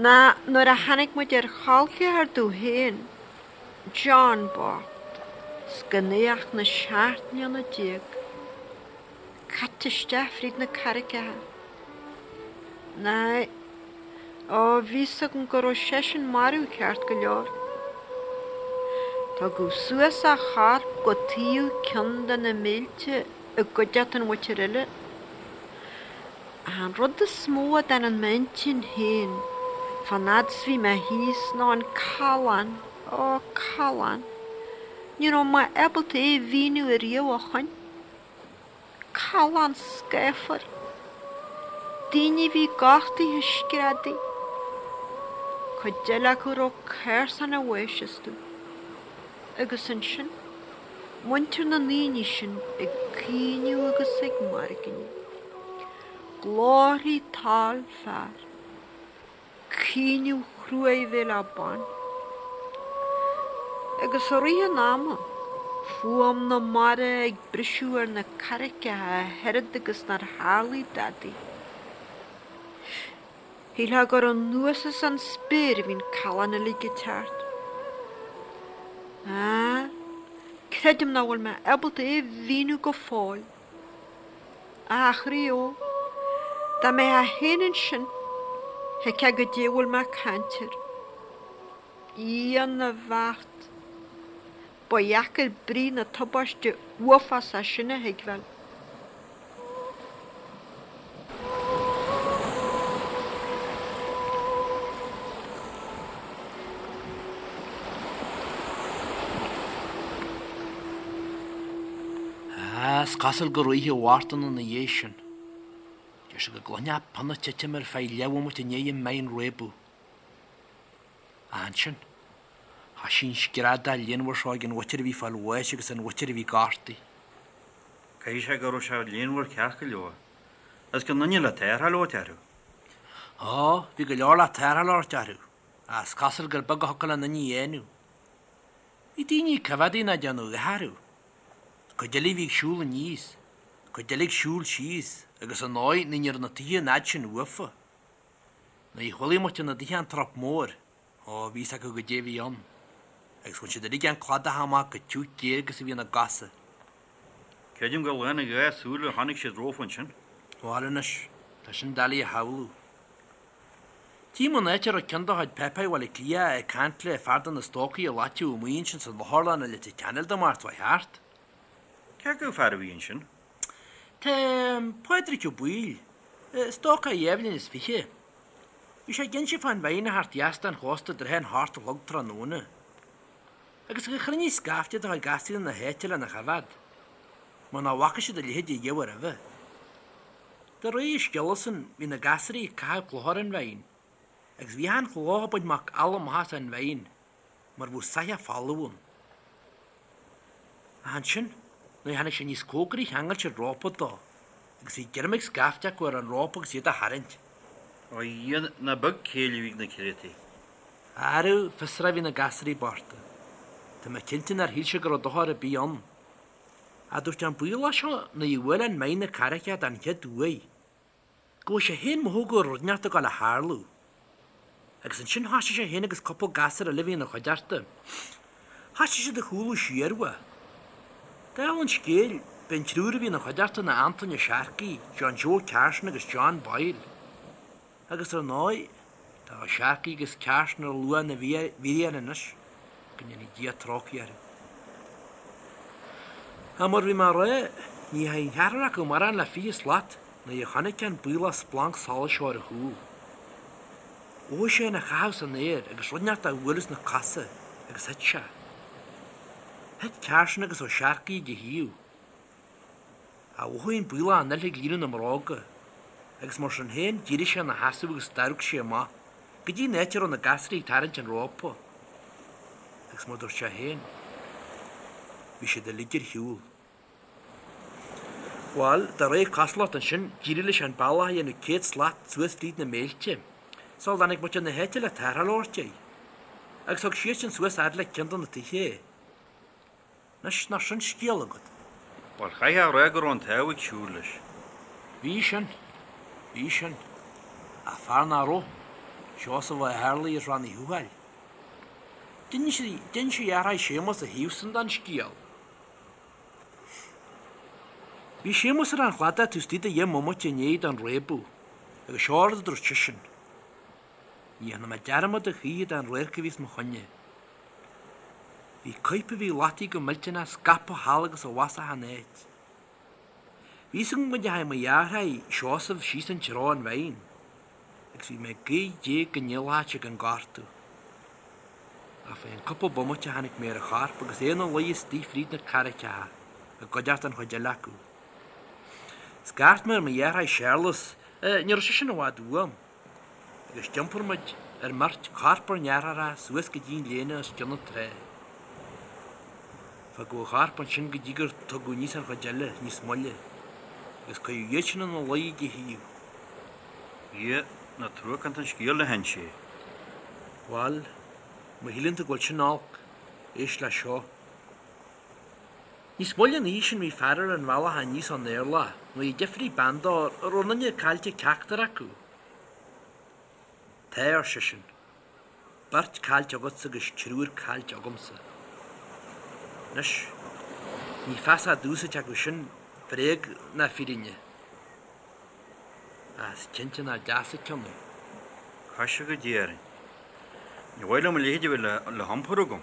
ná nuair a tháinig muid ar chol ceathar domh féin, John bocht, 's gan é ach na 17 mbliana. Caite isteach fríd na carraigeacha. Ná, ó, bhí 'fhios agam go raibh seisean marbh ceart go leor. Tugadh suas a chorp go taobh ceann de na mílte i gcuideachta an mhuintir eile. Ach an rud is mó a d'fhan in m'intinn féin fán fhad 's bhí mé thíos ná an callán, ó, callán. Ní raibh mé ábalta é a mhíniú ariamh ó shoin. Callán scáfar. Daoine a bhí gortaithe ag screadaigh. Cuid eile acu a raibh cársan an bháis astu. Agus ansin, muintir na ndaoine sin ag caoineadh agus ag mairgneadh. Glórthaí toll fear. Caoineadh chruaidh a bheith le baint. Agus i rith an ama, fuaim na mara ag briseadh ar na carraigeacha a oiread agus nár tharlaigh dadaí. Shílfeá gur anuas as an spéir a bhí an callán uilig ag teacht. Á, creidim nach bhfuil mé ábalta é a mhíniú go fóill. A chroí ó, dá mbeifeá féin ansin, thuigfeá goidé a bhfuil mé ag caint air. Dia na bhfeart! Ba dheacair brí na tubaiste uafásach sin a thuigbheáil. Is cosúil gur oíche Mhártan ina dhiaidh sin. Deir sé go gcluinfeá pionna ag titim ar feadh leathbhomaite i ndiaidh an mine réabadh. Ach ansin, thoisigh an screadach léanmhar seo ag an mhuintir a bhí ag fáil bháis agus an mhuintir a bhí gortaithe. Caithfidh sé go raibh sé léanmhar ceart go leor. Is gan duine le tarrtháil a thabhairt orthu. Ó, bhí go leor le tarrtháil a thabhairt orthu, ach is cosúil gur beag a thiocfadh le aon duine a dhéanamh. Bhí daoine ag coimheádaí ná déanamh a dhath orthu. Cuid eile a bhí ag siúl aníos, cuid eile ag siúl síos, agus ar ndóigh ní raibh na tithe an fhad sin uafa. Nuair a chualaigh muintir na dtithe an trup mór, ó, bhí fhios acu goidé a bhí ann, agus bhain siad uilig an cladach amach chomh tiugh géar agus a bhí ina gcosa. Creidim gur lán a dhá súil a chonaic siad rompu ansin. Bhail anois, tá sin doiligh a shamhlú. Tchím an áit a raibh ceann de chuid páipéir Bhaile Átha Cliath ag caint le fear de na stócaigh a loiteadh amuigh ansin san otharlann i Leitir Ceanainn Dé Máirt seo thart. Cé acu fear a bhí ansin? Tá Pádraic Ó Baoill, stócach dhá bhliain is fiche. Bhí sé ag inse fán mhine a theacht dheas den chósta i dtrátha an hocht a chlog tráthnóna. Agus gur chruinnigh scaifte de chuid gasúir na háite lena choimheád, mar nach bhfaca siad a leithéid ariamh roimhe. De réir a scéalasan bhí na gasúraí ag caitheamh clocha ar an mhine, agus bhí achan chloch ag baint macalla amach as an mhine, mar bheadh soitheach folamh ann. Ach ansin, nuair a tháinig sé níos cóngaraí cheangail siad rópa dó, agus bhí greim ag scaifte acu ar an rópa agus iad á tharraingt. Ó a Dhia, nach beag céill a bhí ag na créatúir. Arú, fiosrach a bhí na gasúraí bochta. Tá mé cinnte nár shíl siad go raibh dochar ar bith ann. Ach dúirt an Baollach seo nuair a bhuail an mine na carraigeacha den chéad uair, go bhfuair sé féin mothú go raibh rud inteacht ag dul a tharlú. Agus ansin thoisigh sé féin agus cúpla gasúr eile a bhí ina chuideachta. Thoisigh siad ag cúlú siar uaidh. Dála an scéil, b'é an triúr a bhí ina chuideachta ná Antoine Ó Searcaigh, John Joe Carson agus John Boyle. Agus ar ndóigh, tá Ó Searcaigh agus Carson ar luaith na bhfíréan anois, go ndéanfaidh Dia trócaire orthu. Ach mar bhí mé a rá, ní dheachaigh an ceathrar acu mórán le 20 slat nuair a chonaic an Baollach splanc solais seo ar a chúl. Mhothaigh sé ina chaitheamh san aer agus rud inteacht á bhualadh sna cosa agus thit sé. Thit Carson agus Ó Searcaigh ag a thaobh. Ach mhothaigh an Baollach an fhuil ag líonadh na mbróga, agus mar sin féin d'éirigh sé ina sheasamh agus d'amharc sé amach go dtí an áit a raibh na gasraí ag tarraingt an rópa. Agus mar dúirt sé féin, bhí siad uilig ar shiúl. Bhail, de réir cosúlacht ansin, d'éirigh leis an bealach a dhéanamh 100 slat suas fríd na méilte, sula dtáinig muintir na háite le tarrtháil a thabhairt air. Agus thug siadsan suas fhad le ceann de na tithe é. Anois, nach sin scéal agat? Bhuel, chaithfeá a rá go raibh an t-ádh ag siúl leis. Bhí sin. Bhí sin. Ach fear nach raibh, Seosamh Ó hÉarlaí as Rann Uí Thuathail. D'inis a dheartháir Séamus a thaobhsan den scéal. Bhí Séamus ar an chladach taobh istigh de dheich mbomaite i ndiaidh don réabadh, agus seo rud a dúirt seisean, Ní dhéanfaidh mé dearmad a choíche den radharc a bhí os mo choinne. Bhí coirp a bhí loitithe go millteanach scaipthe thall agus abhus achan áit. Bhí fhios agam go ndeachaigh mo dheartháir Seosamh síos an treo an Veain agus bhí mé ag guí Dé go ndíolfadh sé gan gortú. Ach fá cheann cúpla bomaite chonaic mé ar a chorp agus é ina luí istigh fríd na carraigeacha i gcuideachta an chuid eile acu. Scairt mé ar mo dheartháir Séarlas, ní raibh seisean i bhfad uaim, agus d'iompair muid ár mbeirt corp ár ndeartháireacha suas go dtí an léana os cionn na trá. Fágadh a chorp ansin go dtí gur tugadh aníos an chuid eile níos moille, agus cuireadh iad sin ina luí ag a thaobh. Dhia, nach truacánta an scéal le hinse é. Bhail, má shíleann tú go bhfuil sin olc, éist le seo. Níos moille an oíche sin bhí fear ar an bhealach aníos ón Éirleach nuair a d'fhiafraigh bean dó an raibh aon duine caillte ceachtar acu. Tá, ar seisean. Beirt caillte agatsa agus triúr caillte agamsa. Anois, ní feasach domhsa cé acu sin bréag ná fírinne. Ach is cinnte nach deas an ceann é. Caise go Dia orainn. Ní mhaith liom a leithéid a bheith le hiompar agam.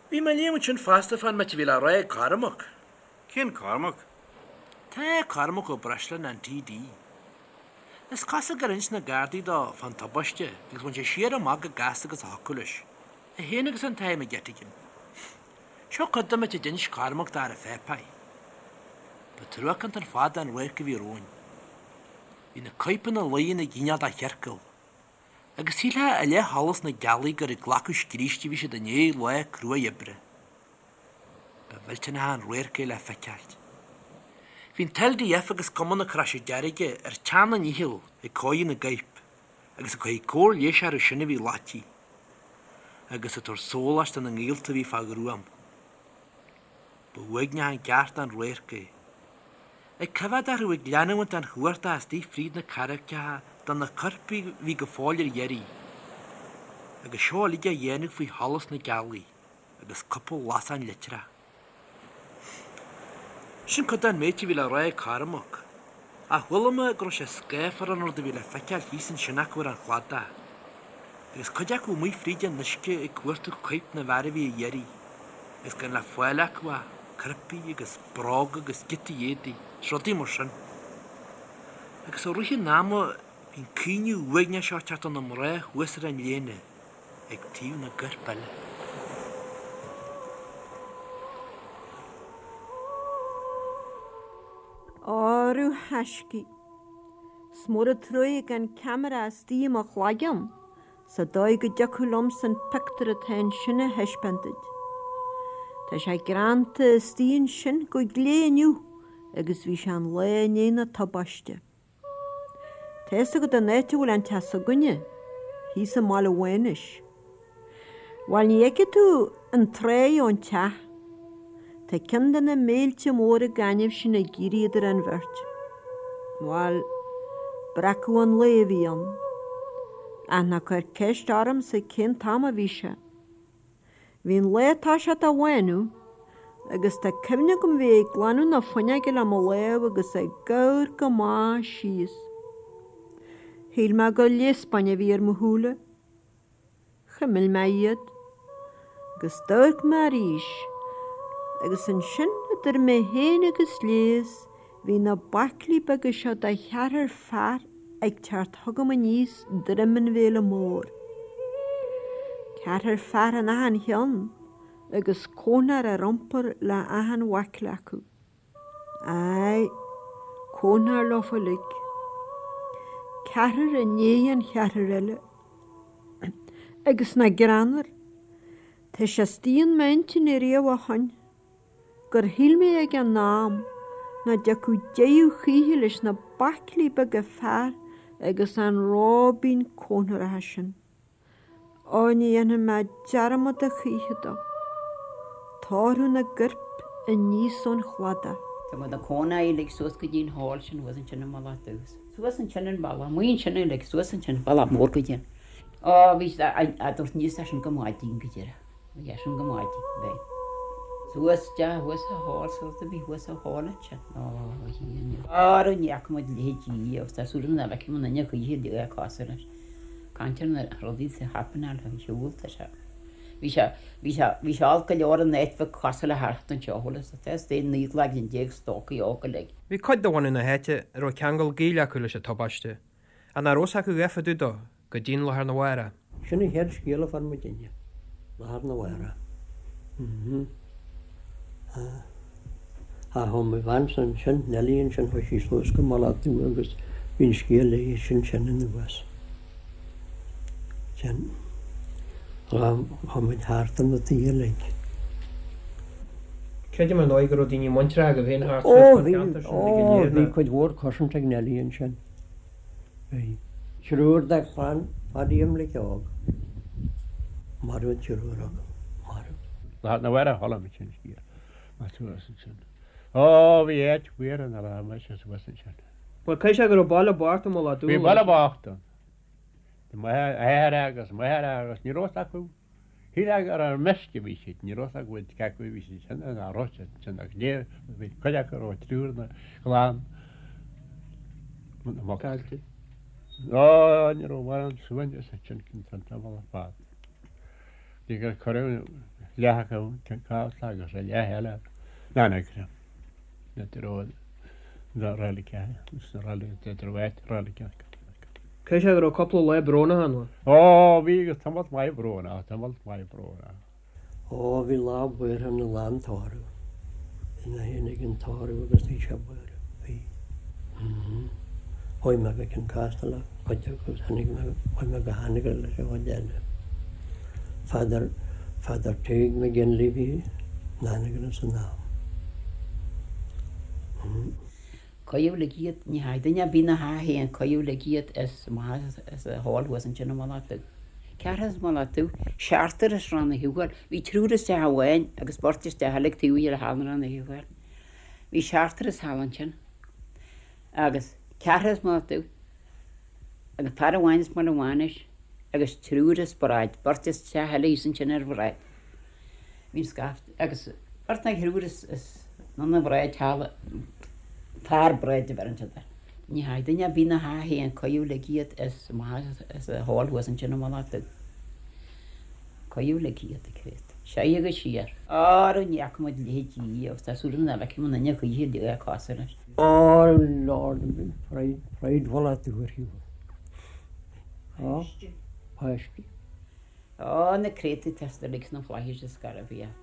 Bhí mé ag léamh ansin fosta fán méid a bhí le rá ag Cormac. Cén Cormac? Tá Cormac Ó Breisleáin, an TD. Is cosúil gur inis na Gardaí dó fán tubaiste agus bhain sé siar amach chomh gasta agus a thiocfadh leis, é féin agus an tAthair McGettigan. Seo cuid den méid a d'inis Cormac d'air pháipéir. Ba truacánta ar fad an radharc a bhí romhainn. Bhí na coirp ina luí ina gcineál de chiorcal. Agus shílfeá i leith sholas na gealaí gur ag glacadh scríste a bhí siad i ndiaidh lá cruaidh oibre. Ba mhillteanach an radharc é le feiceáilt. Bhí an tLDF agus Cumann na Croise Deirge ar teann a ndíchill ag cóiriú na gcoirp agus ag cur cóir leighis orthu sin a bhí loitithe agus ag tabhairt sóláis do na ngaolta a bhí fá ghruaim. Ba uaigneach an ceart an radharc é. Ag coimhéad orthu ag leanúint den chuardach istigh fríd na carraigeacha do na coirp a bhí go fóill ar iarraidh. Agus seo uilig á dhéanamh faoi sholas na gealaí agus cúpla lasán leictreach. Sin cuid den méid a bhí le rá ag Cormac. Ach chuala mé go raibh sé scáfar an rud a bhí le feiceáil thíos ansin acu ar an chladach. Agus cuid acu amuigh fríd an uisce ag cuartú coirp na bhfear a bhí ar iarraidh, agus gan le fáil acu ach coirpigh agus bróga agus giotaí éadaigh is rudaí mar sin. Agus i rith an ama bhí an caoineadh uaigneach seo ag teacht ó na mná thuas ar an léana ag taobh na gcorp eile. Órú thaiscidh. 'S mór an truaighe gan ceamara istigh i mo chloigeann sa dóigh go dtiocfadh liomsa an pictiúr atá ansin a thaispeáint duit. Tá sé greanta istigh ansin go glé inniu agus bhí sé an lá i ndiaidh na tubaiste. Tá fhios agat an áit a bhfuil an teach s'againne, thíos i mBaile Mhánais. Bhuel, ní fheicfidh tú an tráigh ón teach. Tá ceann de na mílte móra gainimh sin ag éirí idir an bheirt. Bhuel, breacadh an lae a bhí ann. Ach ná cuir ceist ormsa cén t-am a bhí sé. Bhí an lá ag toiseacht a bhánú, agus tá cuimhne agam bheith ag glanadh na fuinneoige le mo lámh agus ag amharc amach síos. Shíl mé gur léas bainne a bhí ar mo shúile. Chuimil mé iad, agus d'amharc mé arís, agus ansin idir mé féin agus léas bhí na baiclí beaga seo de cheathrar fear ag teacht chugam aníos droim an Bhéile Mór. Ceathrar fear in achan cheann agus cónóir ar iompar le achan bhaicle acu. Aye, cónóir leofa uilig. Ceathrar i ndiaidh an cheathrair eile. Agus nach greannmhar, tá sé istigh in m'intinn ariamh ó shoin, gur shíl mé ag an am nach dtiocfadh deireadh choíche leis na baiclí beaga fear agus an róibín cónóireacha sin. Ó, ní dhéanfaidh mé dearmad a choíche dó. Tórramh na gcorp. aníos ón chladach. Tá muid ina cónaí uilig suas go dtí an hall sin thuas ansin i Mullach Dubh. Suas ansin an bealach, amuigh ansin uilig, suas ansin, bealach mór go dtí an. Ó, bhí siad a' dtabhairt aníos é sin go maidin go deireadh. Bhí é sin go maidin, bhí. Suas isteach thuas sa hall, suas a bhí thuas sa hall ansin. Ó, a Dhia. Ara ní fhaca muid leithéidí riamh, tá súil agam nach bhfeicfidh muid aon choíche a bheith cosúil leis. Caint ar na rudaí sa happenáil ar shiúl, tá sé. Bhí sé, bhí sé, bhí sé olc go leor an áit bheith cosúil le thart anseo, bhfuil fhios agat, is é 19 laigin stócaigh óga uilig. Bhí cuid de bhunadh na háite a raibh ceangal gaoil acu leis an tubaiste, ach nach raibh fhios acu a dhath fá dtaobh dó go dtí'n lá arna mhárach. Sin an chéad scéal a fuair muidinne, lá arna mhárach. Ach ó mo bheansa ansin, Nellie ansin, chuaigh sí suas go Mullach Dubh agus bhí an scéal léi sin sin anuas. Sin. Chuaigh muid thart ar na tithe uilig. Creidim ar ndóigh go raibh daoine muinteartha agaibh féin thart suas Ó sna bhí, ceantair sin ó uilig go léir, bhí nach? cuid mhór cousins ag Nellie ansin. Bhí. Triúr de chlann Phadaí Imlic Óg. Marbh an triúr acu. Marbh. Lá arna mhárach a chuala muid sin scéal. Mar suas ansin. Ó bhí áit mhór ina raibh mise suas ansin. Bhuel caithfidh sé go raibh baile bocht i Mullach Dubh Bhí baile bocht ann. Bhí m'athair agus máthair agus ní raibh fhios acu. Shílfeá gur ar meisce a bhí siad, ní raibh fhios acu cé acu a bhí siad sona ná raibh siad sona ach ní bhí cuid acu a raibh triúr ina gclann na muc. Ó ní raibh mórán suaimhneas ansin an tamall ar fad. Bhí gur cuireadh leath acu Cionn Caslach agus an leath eile in Anagaire. Na na reilige na reilige na reilige reilige. Caithfidh sé go raibh cúpla lá brónach ann. Ó, bhí agus tamalt maith brónach, tamalt maith brónach. Ó, bhí lá buartha ann an lá an tórramh. Bhí mé féin ag an tórramh agus bhí sé buartha. Bhí. Mm. Chuaigh mé go Cionn Caslach le cuid acu agus tháinig mé, chuaigh mé go hAnagaire leis an chuid eile. Father, Father Tadhg McGinley bhí in Anagaire san am. Mm. Cuireadh uilig iad, ní hea, duine ar bith ina theach féin, cuireadh uilig iad as amach as an hall thuas ansin i Mullach Dubh. Ceathrar as Mullach Dubh, seachtar as Rann na Shiubhal, bhí triúr as teach amháin agus beirt as teach eile ag taobh thiar de halla Rann na Shiubhal. Bhí seachtar as thall ansin agus ceathrar as Mullach Dubh agus fear amháin as Mullach Mhánais agus triúr as Bráid, beirt as teach eile thíos ansin ar Bhráid. Bhí an scaifte agus beirt nó thriúr as an Bhráid thall, fear Bráid a bheireann siad air. Ní hea, duine ar bith ina theach féin, cuireadh uilig iad as amach as an hall thuas ansin i Mullach Dubh. Cuireadh uilig iad ag creat. Soir agus siar. Ara ní fhaca muid a leithéid riamh agus tá súil agam nach bhfeicfidh muid aon choíche a bheith cosúil leis. Oh Lord, pride, pride Mhullach Dubh ar shiúl. Páistí. Páistí. Ó, na créatúir atá uilig sna flaithis is garbh iad.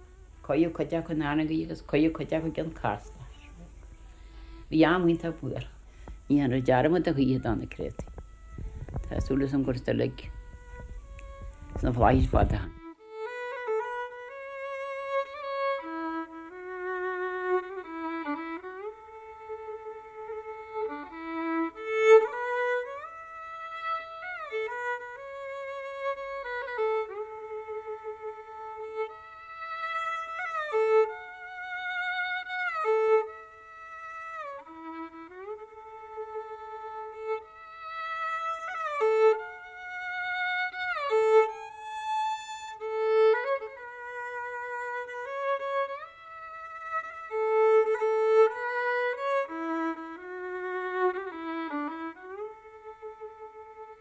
Cuireadh cuid acu in Anagaire agus cuireadh cuid acu i gCionn Caslach. Bhí am iontach buartha. Ní dhéanfar dearmad a choíche do na créatúir. Tá súil agam gur uilig sna flaithis fada.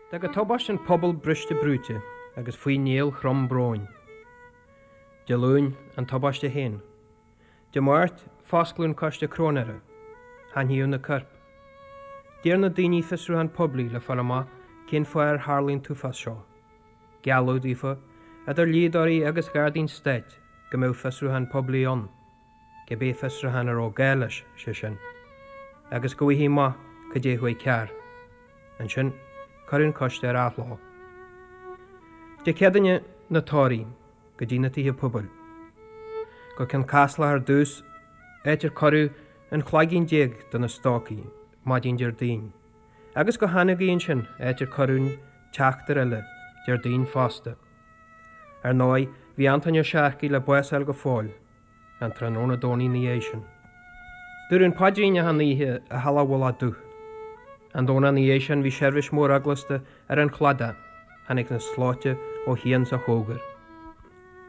D'fhág an tubaiste an pobal briste brúite agus faoi néal throm bróin. Dé Luain, an tubaiste féin. Dé Máirt, foscladh an coiste cróinéara. Haithníodh na coirp. D'iarr na daoine fiosrúchán poiblí le fáil amach cén fáth ar tharlaigh an t-uafás seo. Gealladh daofa, idir dhlíodóirí agus ghardaí an stáit, go mbeadh fiosrúchán poiblí ann. cibé fiosrúchán a raibh gá leis, sé sin, agus go bhfaighfí amach cad é a chuaigh cearr. Ansin, cuireadh an coiste ar athló. Dé Céadaoine, na tórraimh, go dtí na tithe pobail. Go Cionn Caslach ar dtús, áit ar cuireadh an cloigeann déag de na stócaigh, maidin Déardaoin, agus go hAnagaire ansin, áit ar cuireadh an tseachtar eile, Déardaoin fosta. Ar ndóigh, bhí Antóin Ó Searcaigh le bás a fháil go fóill. An tráthnóna Domhnaigh ina dhiaidh sin. Dúradh an paidrín achan oíche i Halla Mhullach Dubh. An Domhnach ina dhiaidh sin bhí seirbhís mhór eaglasta ar an chladach, tháinig na slóite ó chian 's ó chóngar.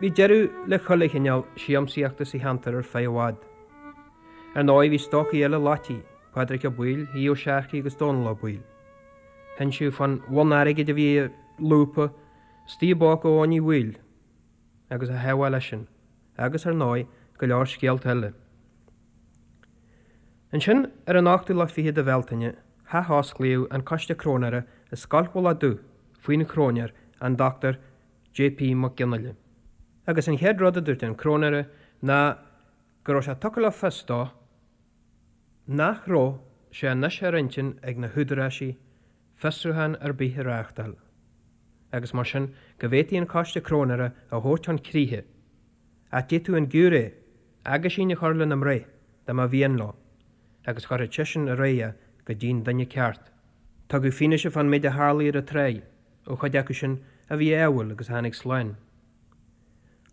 Bhí deireadh le chuile chineál siamsaíochta sa cheantar ar feadh i bhfad. Ar ndóigh bhí stócaigh eile loití, Pádraic Ó Baoill, Aodh Ó Searcaigh agus Dónal Ó Baoill. Hinsíodh fán bhonn airgid a bhí i lúpa istigh i bpóca Eoin Uí Bhaoill agus a theagmháil leisean, agus, ar ndóigh, go leor scéalta eile. Ansin, ar an ochtú lá fichead de Bhealtaine, hathosclaíodh an Coiste Cróinéara i Scoil Mhullach Dubh faoina chróinéir, an Dr. J.P. Mac Fhionnghaile. Agus an chéad rud a dúirt an cróinéara ná go raibh sé tugtha le fios dó nach raibh sé anois ar intinn ag na húdaráisí fiosrúchán ar bith a reáchtáil, agus mar sin go bhféadfaí an Coiste Cróinéara a thabhairt chun críche, ach d'fhéadfadh an giúiré aguisín a chur lena mbreith dá mba mhian leo, agus chuirfeadh seisean ar aghaidh é go dtí'n duine ceart. Tugadh fianaise fán méid a tharlaigh ar an tráigh ó chuid acu sin a bhí ádhúil agus a tháinig slán.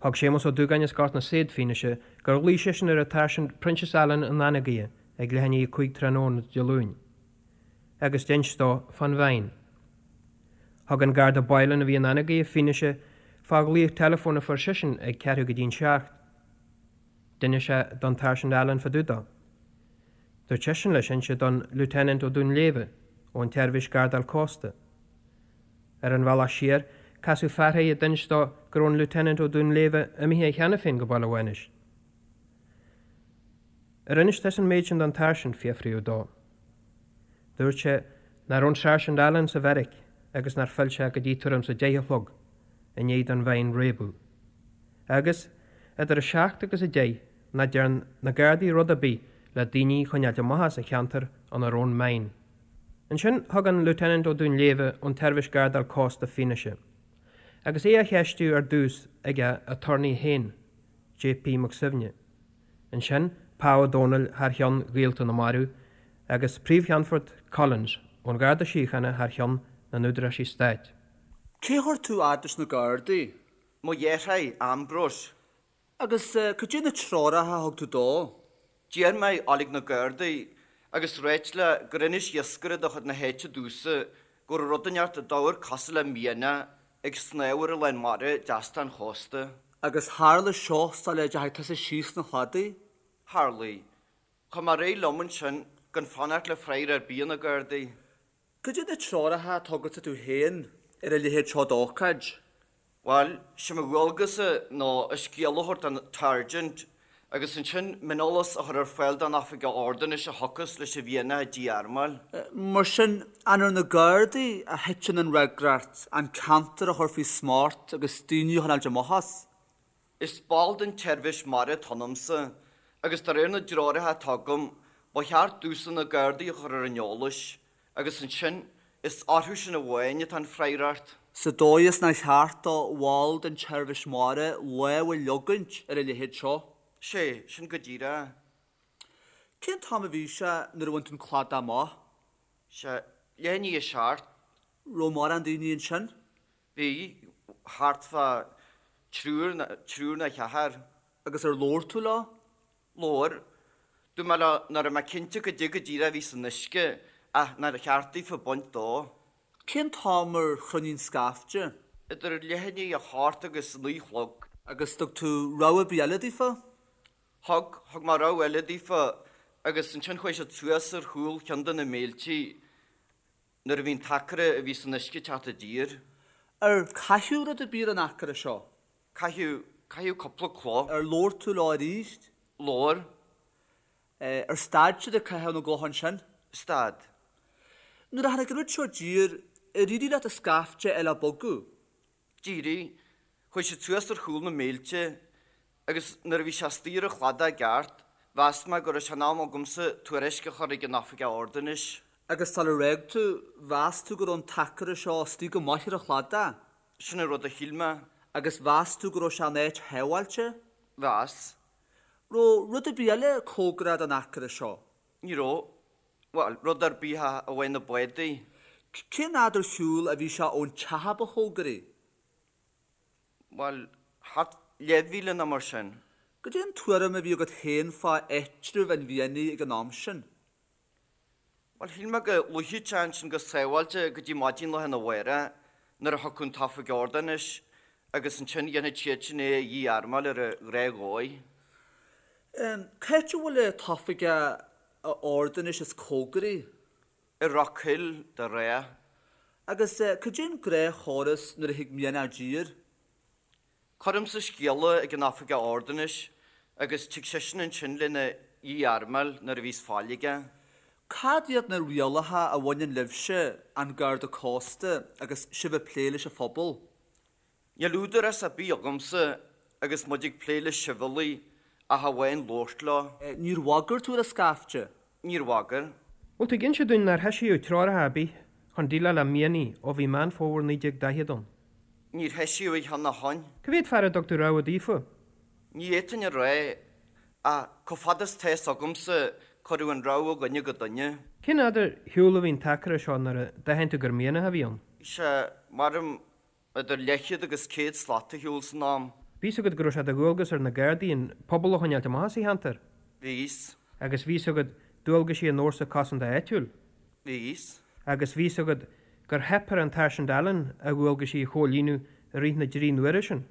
Thug Séamus Ó Dúgáin as Gort na Saighead fianaise gur ghlaoigh seisean ar an tSáirsint Proinsias Allen in Anagaire ag leath i ndiaidh 5 tráthnóna Dé Luain agus d'inis dó fán mhine. Thug an Garda Boylan a bhí in Anagaire fianaise fá ghlaoch teileafóin a fuair seisean ag ceathrú go dtí'n seacht. D'inis sé don tSáirsint Allen fá dtaobh dó. Dúirt seisean leis inse don Lieutenant Ó Dúnléibhe ón tSeirbhís Gardáil Cósta. Ar an bhealach siar, casadh fear air a d'inis dó go raibh an Lieutenant Ó Dúnléibhe imithe cheana féin go Baile Mhánais. Ar inis tusa an méid sin don tSáirsint? fiafraíodh dó. Dúirt sé nach raibh an Sáirsint Allen sa bheairic agus nár phill sé go dtí tuairim 's a 10 a chlog i ndiaidh don mhine réabadh. Agus, idir a seacht agus a deich, nach dtearn na Gardaí rud ar bith le daoine a choinneáilt amach as an cheantar ina raibh an mine. Ansin thug an Lieutenant Ó Dúnléibhe ón tSeirbhís Gardáil Cósta fianaise, agus é á cheistiú ar dtús ag a aturnae féin, J.P. Mac Suibhne. Ansin Pa Ó Domhnaill thar cheann ghaolta na marbh agus Príomh-Cheannfort Collins ón Gharda Síochána thar cheann na n-údaráisí stáit. Cé chuir tú fhad leis na Gardaí? Mo dheartháir, Ambrose. Agus cad é na treoracha a thug tú dó? D'iarr mé dhul ag na Gardaí agus ráit leo gur inis iascaire de chuid na háite domhsa go raibh rud inteacht a d'amharc cosúil le mianach ag snámh ar an lán mara deas den chósta. Agus tharla seo sula dteachaigh tusa síos chun an chladaigh? Tharlaigh. Chuaigh mé ar aghaidh liom ansin gan fanacht le freagra ar bith ó na Gardaí. Cad é na treoracha a tugadsa tú féin ar a leithéid seo d'ócáid? Bhuel, sé mo dhualgas-sa ná an scéal a thabhairt don tSáirsint agus ansin mioneolas a chur ar fáil don Oifigeach Ordanais a thiocfas leis an mhianach a dí-armáil. Mar sin, an ar na Gardaí a thiteann an fhreagracht an ceantar a chur faoi smacht agus daoine a choinneáilt amach as? Is ball den tseirbhís mara atá ionamsa agus de réir na dtreoracha atá agam, ba cheart domhsa na Gardaí a chur ar an eolas Agus ansin, is orthu sin amháin atá an freagracht. Sa dóigh is nár cheart do bhall den tseirbhís mara lámh a leogaint ar a leithéid seo. Sé, sin go díreach. Cén t-am a bhí sé nuair a bhain tú an cladach amach? Sé, leath i ndiaidh a seacht. Raibh mórán daoine ansin? Bhí, thart fá triúr, triúr nó ceathrar. Agus ar labhair tú leo? Labhair. Dúirt mé leo nach raibh mé cinnte goidé go díreach a bhí san uisce ach nár cheart daofa baint dó. Cén t-am ar chruinnigh an scaifte? Idir leath i ndiaidh a hocht agus a naoi a chlog. Agus thug tú rabhadh ar bith eile daofa? Thug. Thug mé rabhadh eile daofa agus ansin chuaigh siad suas ar chúl cheann de na míltí nuair a bhí an t-aicearra a bhí san uisce ag teacht i dtír. Ar caitheadh rud ar bith ar an aicearra seo? Caitheadh, caitheadh cúpla cloch. Ar labhair tú leo arís? Labhair. Ar stad siad ag caitheamh na gcloch ansin? Stad. Nuair a tháinig an rud seo i dtír, ar éirigh leat an scaifte eile a bhogadh? D'éirigh. Chuaigh siad suas ar chúl na mílte agus nuair a bhí sé istigh ar an chladach i gceart, mheas mé go raibh sé in am agamsa tuairisc a chur ag an Oifigeach Ordanais. Agus sular fhág tú, mheas tú go raibh an t-aicearra seo istigh go maith ar an chladach? Sin an rud a shíl mé. Agus mheas tú go raibh sé in áit shábháilte? Mheas. Raibh rud ar bith eile cóngarach don aicearra seo? Ní raibh. Bhuel, rud ar bith ach amháin na bádaí. Cén fhad ar shiúl a bhí sé ón teach a ba chóngaraí? Bhuel, thart leathmhíle nó mar sin. Goidé an tuairim a bhí agat féin fá áitreabh an mhianaigh ag an am sin? Bhuel, shíl mé go luífeadh sé ansin go sábháilte go dtí maidin lá arna mhárach nuair a thiocfadh an tOifig Ordanáis agus ansin dhéanfadh siad sin é a dhí-armáil ar an ghnáthdhóigh. Cá háit a bhfuil an tOifigeach Ordanáis is cóngaraí? I Rock Hill, de ghnáth. Agus cad é an gnáthchóras nuair a thig mianach i dtír? Cuirimse scéala ag an Oifigeach Ordanáis agus tig seisean ansin lena dhí-armáil nuair a bhíos fáil aige. Cad iad na rialacha a bhaineann libhse, an Garda Cósta, agus sibh ag plé leis an phobal? Níl údarás ar bith agamsa agus muid ag plé le sibhialaigh ach amháin labhairt leo. Níor bhagair tú ar an scaifte? Níor bhagair. Bhfuil tú ag inse dúinn nár heisíodh treoracha ar bith chun déileáil le mianaigh ó bhí Meán Fómhair 1940 ann? Níor heisíodh aon cheann ó shoin. Cá mhéad fear a dtug tú rabhadh daofa? Ní fhéadfainn a rá, ach chomh fada is tá fhios agamsa, cuireadh an rabhadh ó dhuine go duine. Cén fhad ar shiúl a bhí an t-aicearra seo nuair a d'aithin tú gur mianach a bhí ann? Bhí sé, maram, idir leathchéad agus 100 slat ar shiúl san am. Bhí fhios agat go raibh sé de dhualgas ar na Gardaí an pobal a choinneáilt amach as an cheantar? Bhí fhios. Agus bhí fhios agat dualgaisí an fhórsa cosanta áitiúil? Bhí fhios. Agus bhí fhios agat gur theip ar an tSáirsint Allen a dhualgaisí a chomhlíonadh i rith na dtrí n-uaire sin?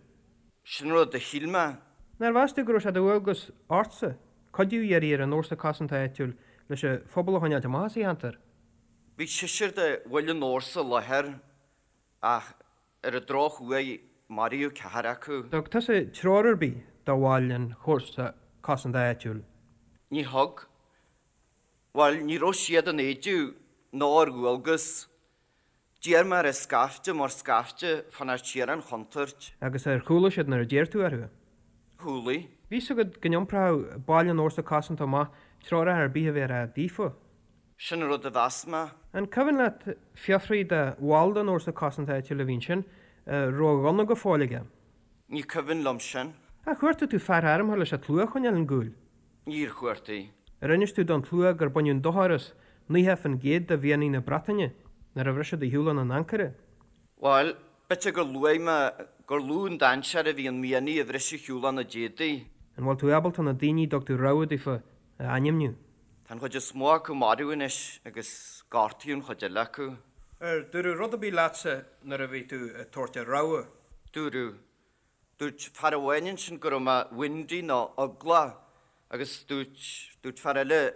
Sin rud a shíl mé. Nár mheas tú go raibh sé de dhualgas ortsa cuidiú a iarraidh ar an fhórsa cosanta áitiúil leis an phobal a choinneáilt amach as an cheantar? Bhí seisear de bhaill an fhórsa i láthair ach ar an drochuair maraíodh ceathrar acu. Thug tusa treoir ar bith do bhaill an Fhórsa Cosanta Áitiúil? Ní thug. Bhuel, ní raibh siad in éideadh ná ar dhualgas. D'iarr mé ar an scaifte mar scaifte fanacht siar ón chontúirt. Agus ar chúlaigh siad nuair a d'iarr tú orthu? Chúlaigh. Bhí fhios agat go n-iompródh baill an Fhórsa Cosanta amach treoracha ar bith a bhéarfá daofa? Sin an rud a mheas mé. An cuimhin leat fiafraí de bhall den Fhórsa Cosanta Áitiúil a bhí ansin an raibh a ghunna go fóill aige? Ní cuimhin liom sin. Ar chuartaigh tú fear armtha leis an tslua a choinneáil ón gcúl? Níor chuartaigh. Ar inis tú don tslua gur baineadh dochar as 90% de mhianaigh na Breataine nuair a bhris siad ar shiúl óna n-ancaire? Bhuel, b'fhéidir gur luaigh mé gur lú an dainséar a bhí in mianaigh a bhris ar shiúl óna d'éadaí. An bhfuil tú ábalta na daoine a dtug tú rabhadh daofa a ainmniú? Tá an chuid is mó acu marbh anois agus gortaíodh an chuid eile acu. Ar dúradh rud ar bith leatsa nuair a bhí tú ag tabhairt an rabhadh? Dúradh. Dúirt fear amháin ansin go raibh mé windy nó eaglach agus dúirt, dúirt fear eile,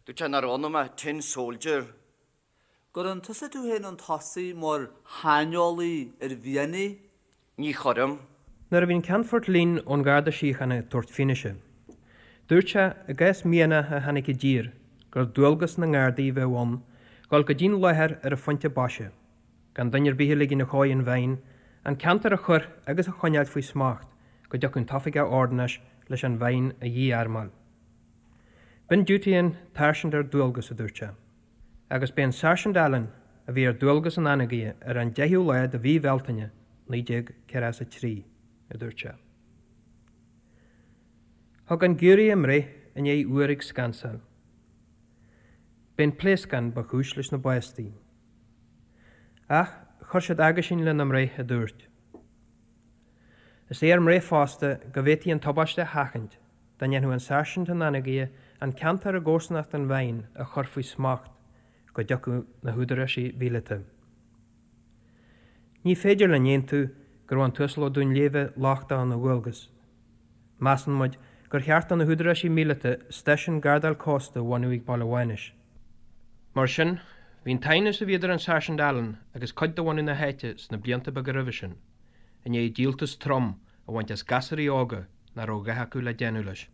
dúirt sé nach raibh ionam ach tin soldier. Gcuireann tusa tú féin chun tosaigh mar shaineolaí ar mhianaigh? Ní chuirim. Nuair a bhí an Ceannfort Leen ón Gharda Síochána ag tabhairt fianaise, dúirt sé, i gcás mianach a tháinig i dtír, gur dualgas na nGardaí a bheadh ann dhul go dtí'n láthair ar an phointe boise, gan duine ar bith a ligin a chóir an mhine, an ceantar a chur agus a choinneáilt faoi smacht go dtiocfadh an tOifigeach Ordanáis leis an mhine a dhí-armáil. B'in diútaí an tsáirsint ar dualgas, a dúirt sé. Agus b'é an Sáirsint Allen a bhí ar dualgas in Anagaire ar an 10ú lá de mhí Bhealtaine 1943, a dúirt sé. Thug an giúiré a mbreith i ndiaidh uair ag scansáil. B'é an pléascán ba chúis leis na bástaí. Ach chuir siad aguisín lena mbreith a dúirt, Is é ár mbreith fosta go bhféadfaí an tubaiste a sheachaint dá ndéanfadh an Sáirsint in Anagaire an ceantar i gcomharsanacht an mhine a chur faoi smacht go dtiocfadh na húdaráisí mhíleata. Ní féidir linn aontú go raibh an tUasal Ó Duinnshléibhe lochtach ina dhualgas. Measann muid gur cheart do na húdaráisí míleata stáisiún gardáil cósta a bhunú ag Baile Mhánais. Mar sin, bhí an t-aighneas a bhí idir an Sáirsint Allen agus cuid de bhunadh na háite sna blianta beaga roimhe sin, i ndiaidh díoltas trom a bhaint as gasúraí óga nach raibh a dhath acu le déanamh leis.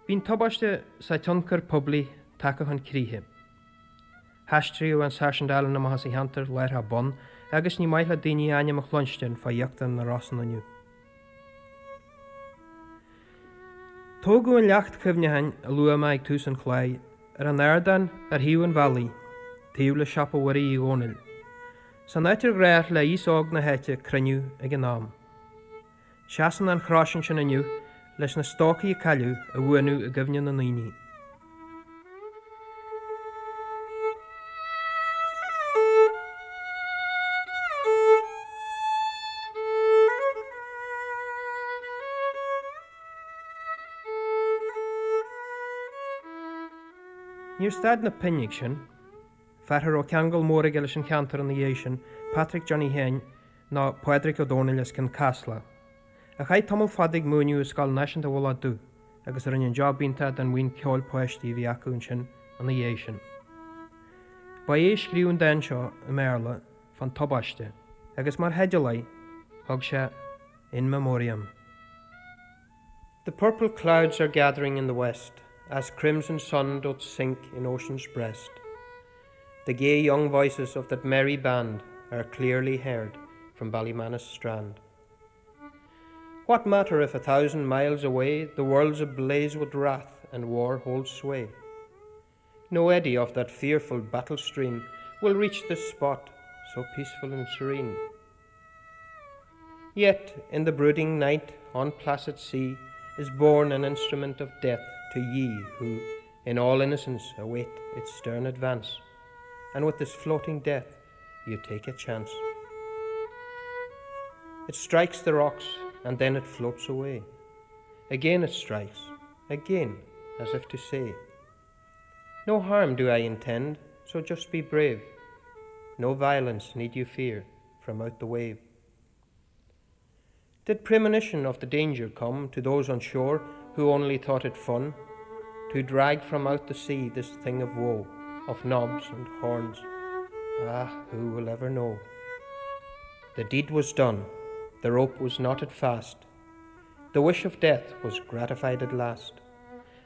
Bhí an tubaiste 's a tionchar poiblí tagtha chun críche. Haistríodh an Sáirsint Allen amach as an cheantar láithreach bonn agus ní maith le daoine a ainm a chluinstin fá íochtar na Rosann inniu. Tógadh an leacht cuimhneacháin a luaigh mé ag tús an chláir ar an ardán ar thaobh an bhealaigh, taobh le siopa Mhuirí Uí Dhónaill, san áit ar ghnách le aos óg na háite cruinniú ag an am. Seasann an chrois ansin inniu leis na stócaigh a cailleadh a bhuanú i gcuimhne na ndaoine. Níor stad na pinn ag sin. Fear a raibh ceangal mór aige leis an cheantar ina dhiaidh sin, Patrick Johnny Sheáin, nó Pádraig Ó Dónaill as Cionn Caslach, a chaith tamall fada ag múineadh i Scoil Náisiúnta Mhullach Dubh agus a rinne job iontach den bhuíon ceoil páistí a bhí acu ansin ina dhiaidh sin. Ba é a scríobh an dán seo i mBéarla fán tubaiste agus mar theideal air thug sé In Memoriam. The purple clouds are gathering in the west As crimson sun doth sink in ocean's breast The gay young voices of that merry band Are clearly heard from Ballymanus strand. What matter if 1,000 miles away The world's ablaze with wrath and war holds sway? No eddy of that fearful battle stream Will reach this spot so peaceful and serene. Yet in the brooding night on placid sea Is borne an instrument of death to ye Who in all innocence await its stern advance, And with this floating death you take a chance. It strikes the rocks and then it floats away. Again it strikes, again, as if to say, No harm do I intend, so just be brave. No violence need you fear from out the wave. Did premonition of the danger come to those on shore who only thought it fun to drag from out the sea this thing of woe, of knobs and horns? Ah, who will ever know? The deed was done, the rope was knotted fast, the wish of death was gratified at last.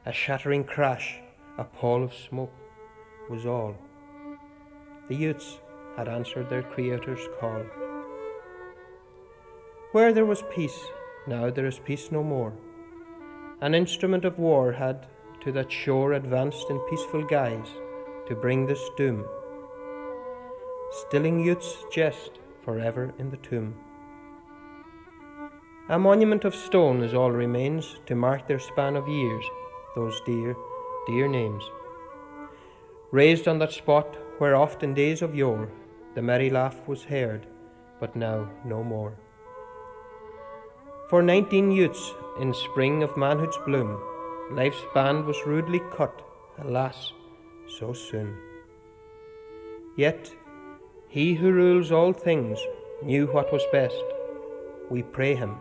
A shattering crash, a pall of smoke, was all. The youths had answered their Creator's call. Where there was peace, now there is peace no more. An instrument of war had to that shore advanced in peaceful guise to bring this doom, stilling youth's jest forever in the tomb. A monument of stone is all remains to mark their span of years, those dear, dear names. Raised on that spot where oft in days of yore the merry laugh was heard, but now no more. For 19 youths in spring of manhood's bloom, life's band was rudely cut, alas, so soon. Yet he who rules all things knew what was best. We pray him,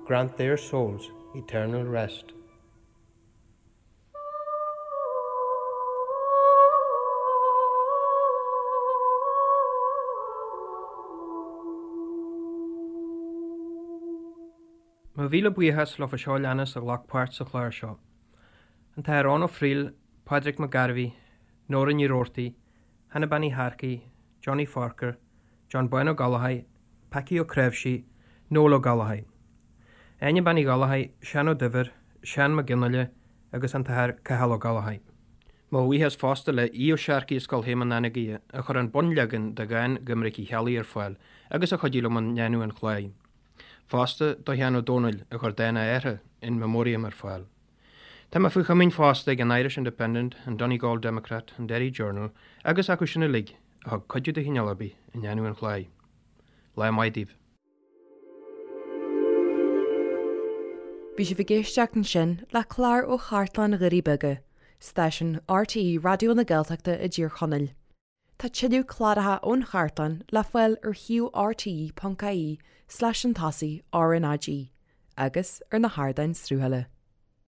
grant their souls eternal rest. Mo mhíle buíochas leofa seo a leanas a ghlac páirt sa chlár seo, An tAthair Eoin Ó Frighil, Pádraig Mac Gairbhí, Nóra Ní Roarty, Hannah Bean Uí Shearcaigh, Johnny Forker, John Bán Ó Gallchóir, Packie Ó Cnáimhsí, Noel Ó Gallchóir. Áine Bean Uí Ghallchóir, Seán Ó Duibhir, Seán Mac Fhionnghaile agus an tAthair Cathal Ó Gallchóir. Mo bhuíochas fosta le Aodh Ó Searcaigh as Scoil Shéamuin Anagaire a chuir an bunleagan de dhán Dhoiminic Uí Cheallaigh ar fáil agus a chuidigh liom i ndéanamh an chláir. Fosta do Sheán Ó Dónaill a chuir dán a athar, In Memoriam ar fáil. Tá mé faoi chomaoin fosta ag an Irish Independent, an Donegal Democrat, an Derry Journal agus acu sin uilig a thug cuidiú de chineál ar bith i ndéanamh an chláir. Lá maith daoibh. Bhí sibh ag éisteacht ansin le clár ó Chartlann Dhoirí Beaga, stáisiún RTÉ Raidió na Gaeltachta i dTír Chonaill. Tá tuilleadh cláracha ón chartlann le fáil ar shuíomh rte.ie slash an tosaigh RnaG agus ar na hardáin sruthála.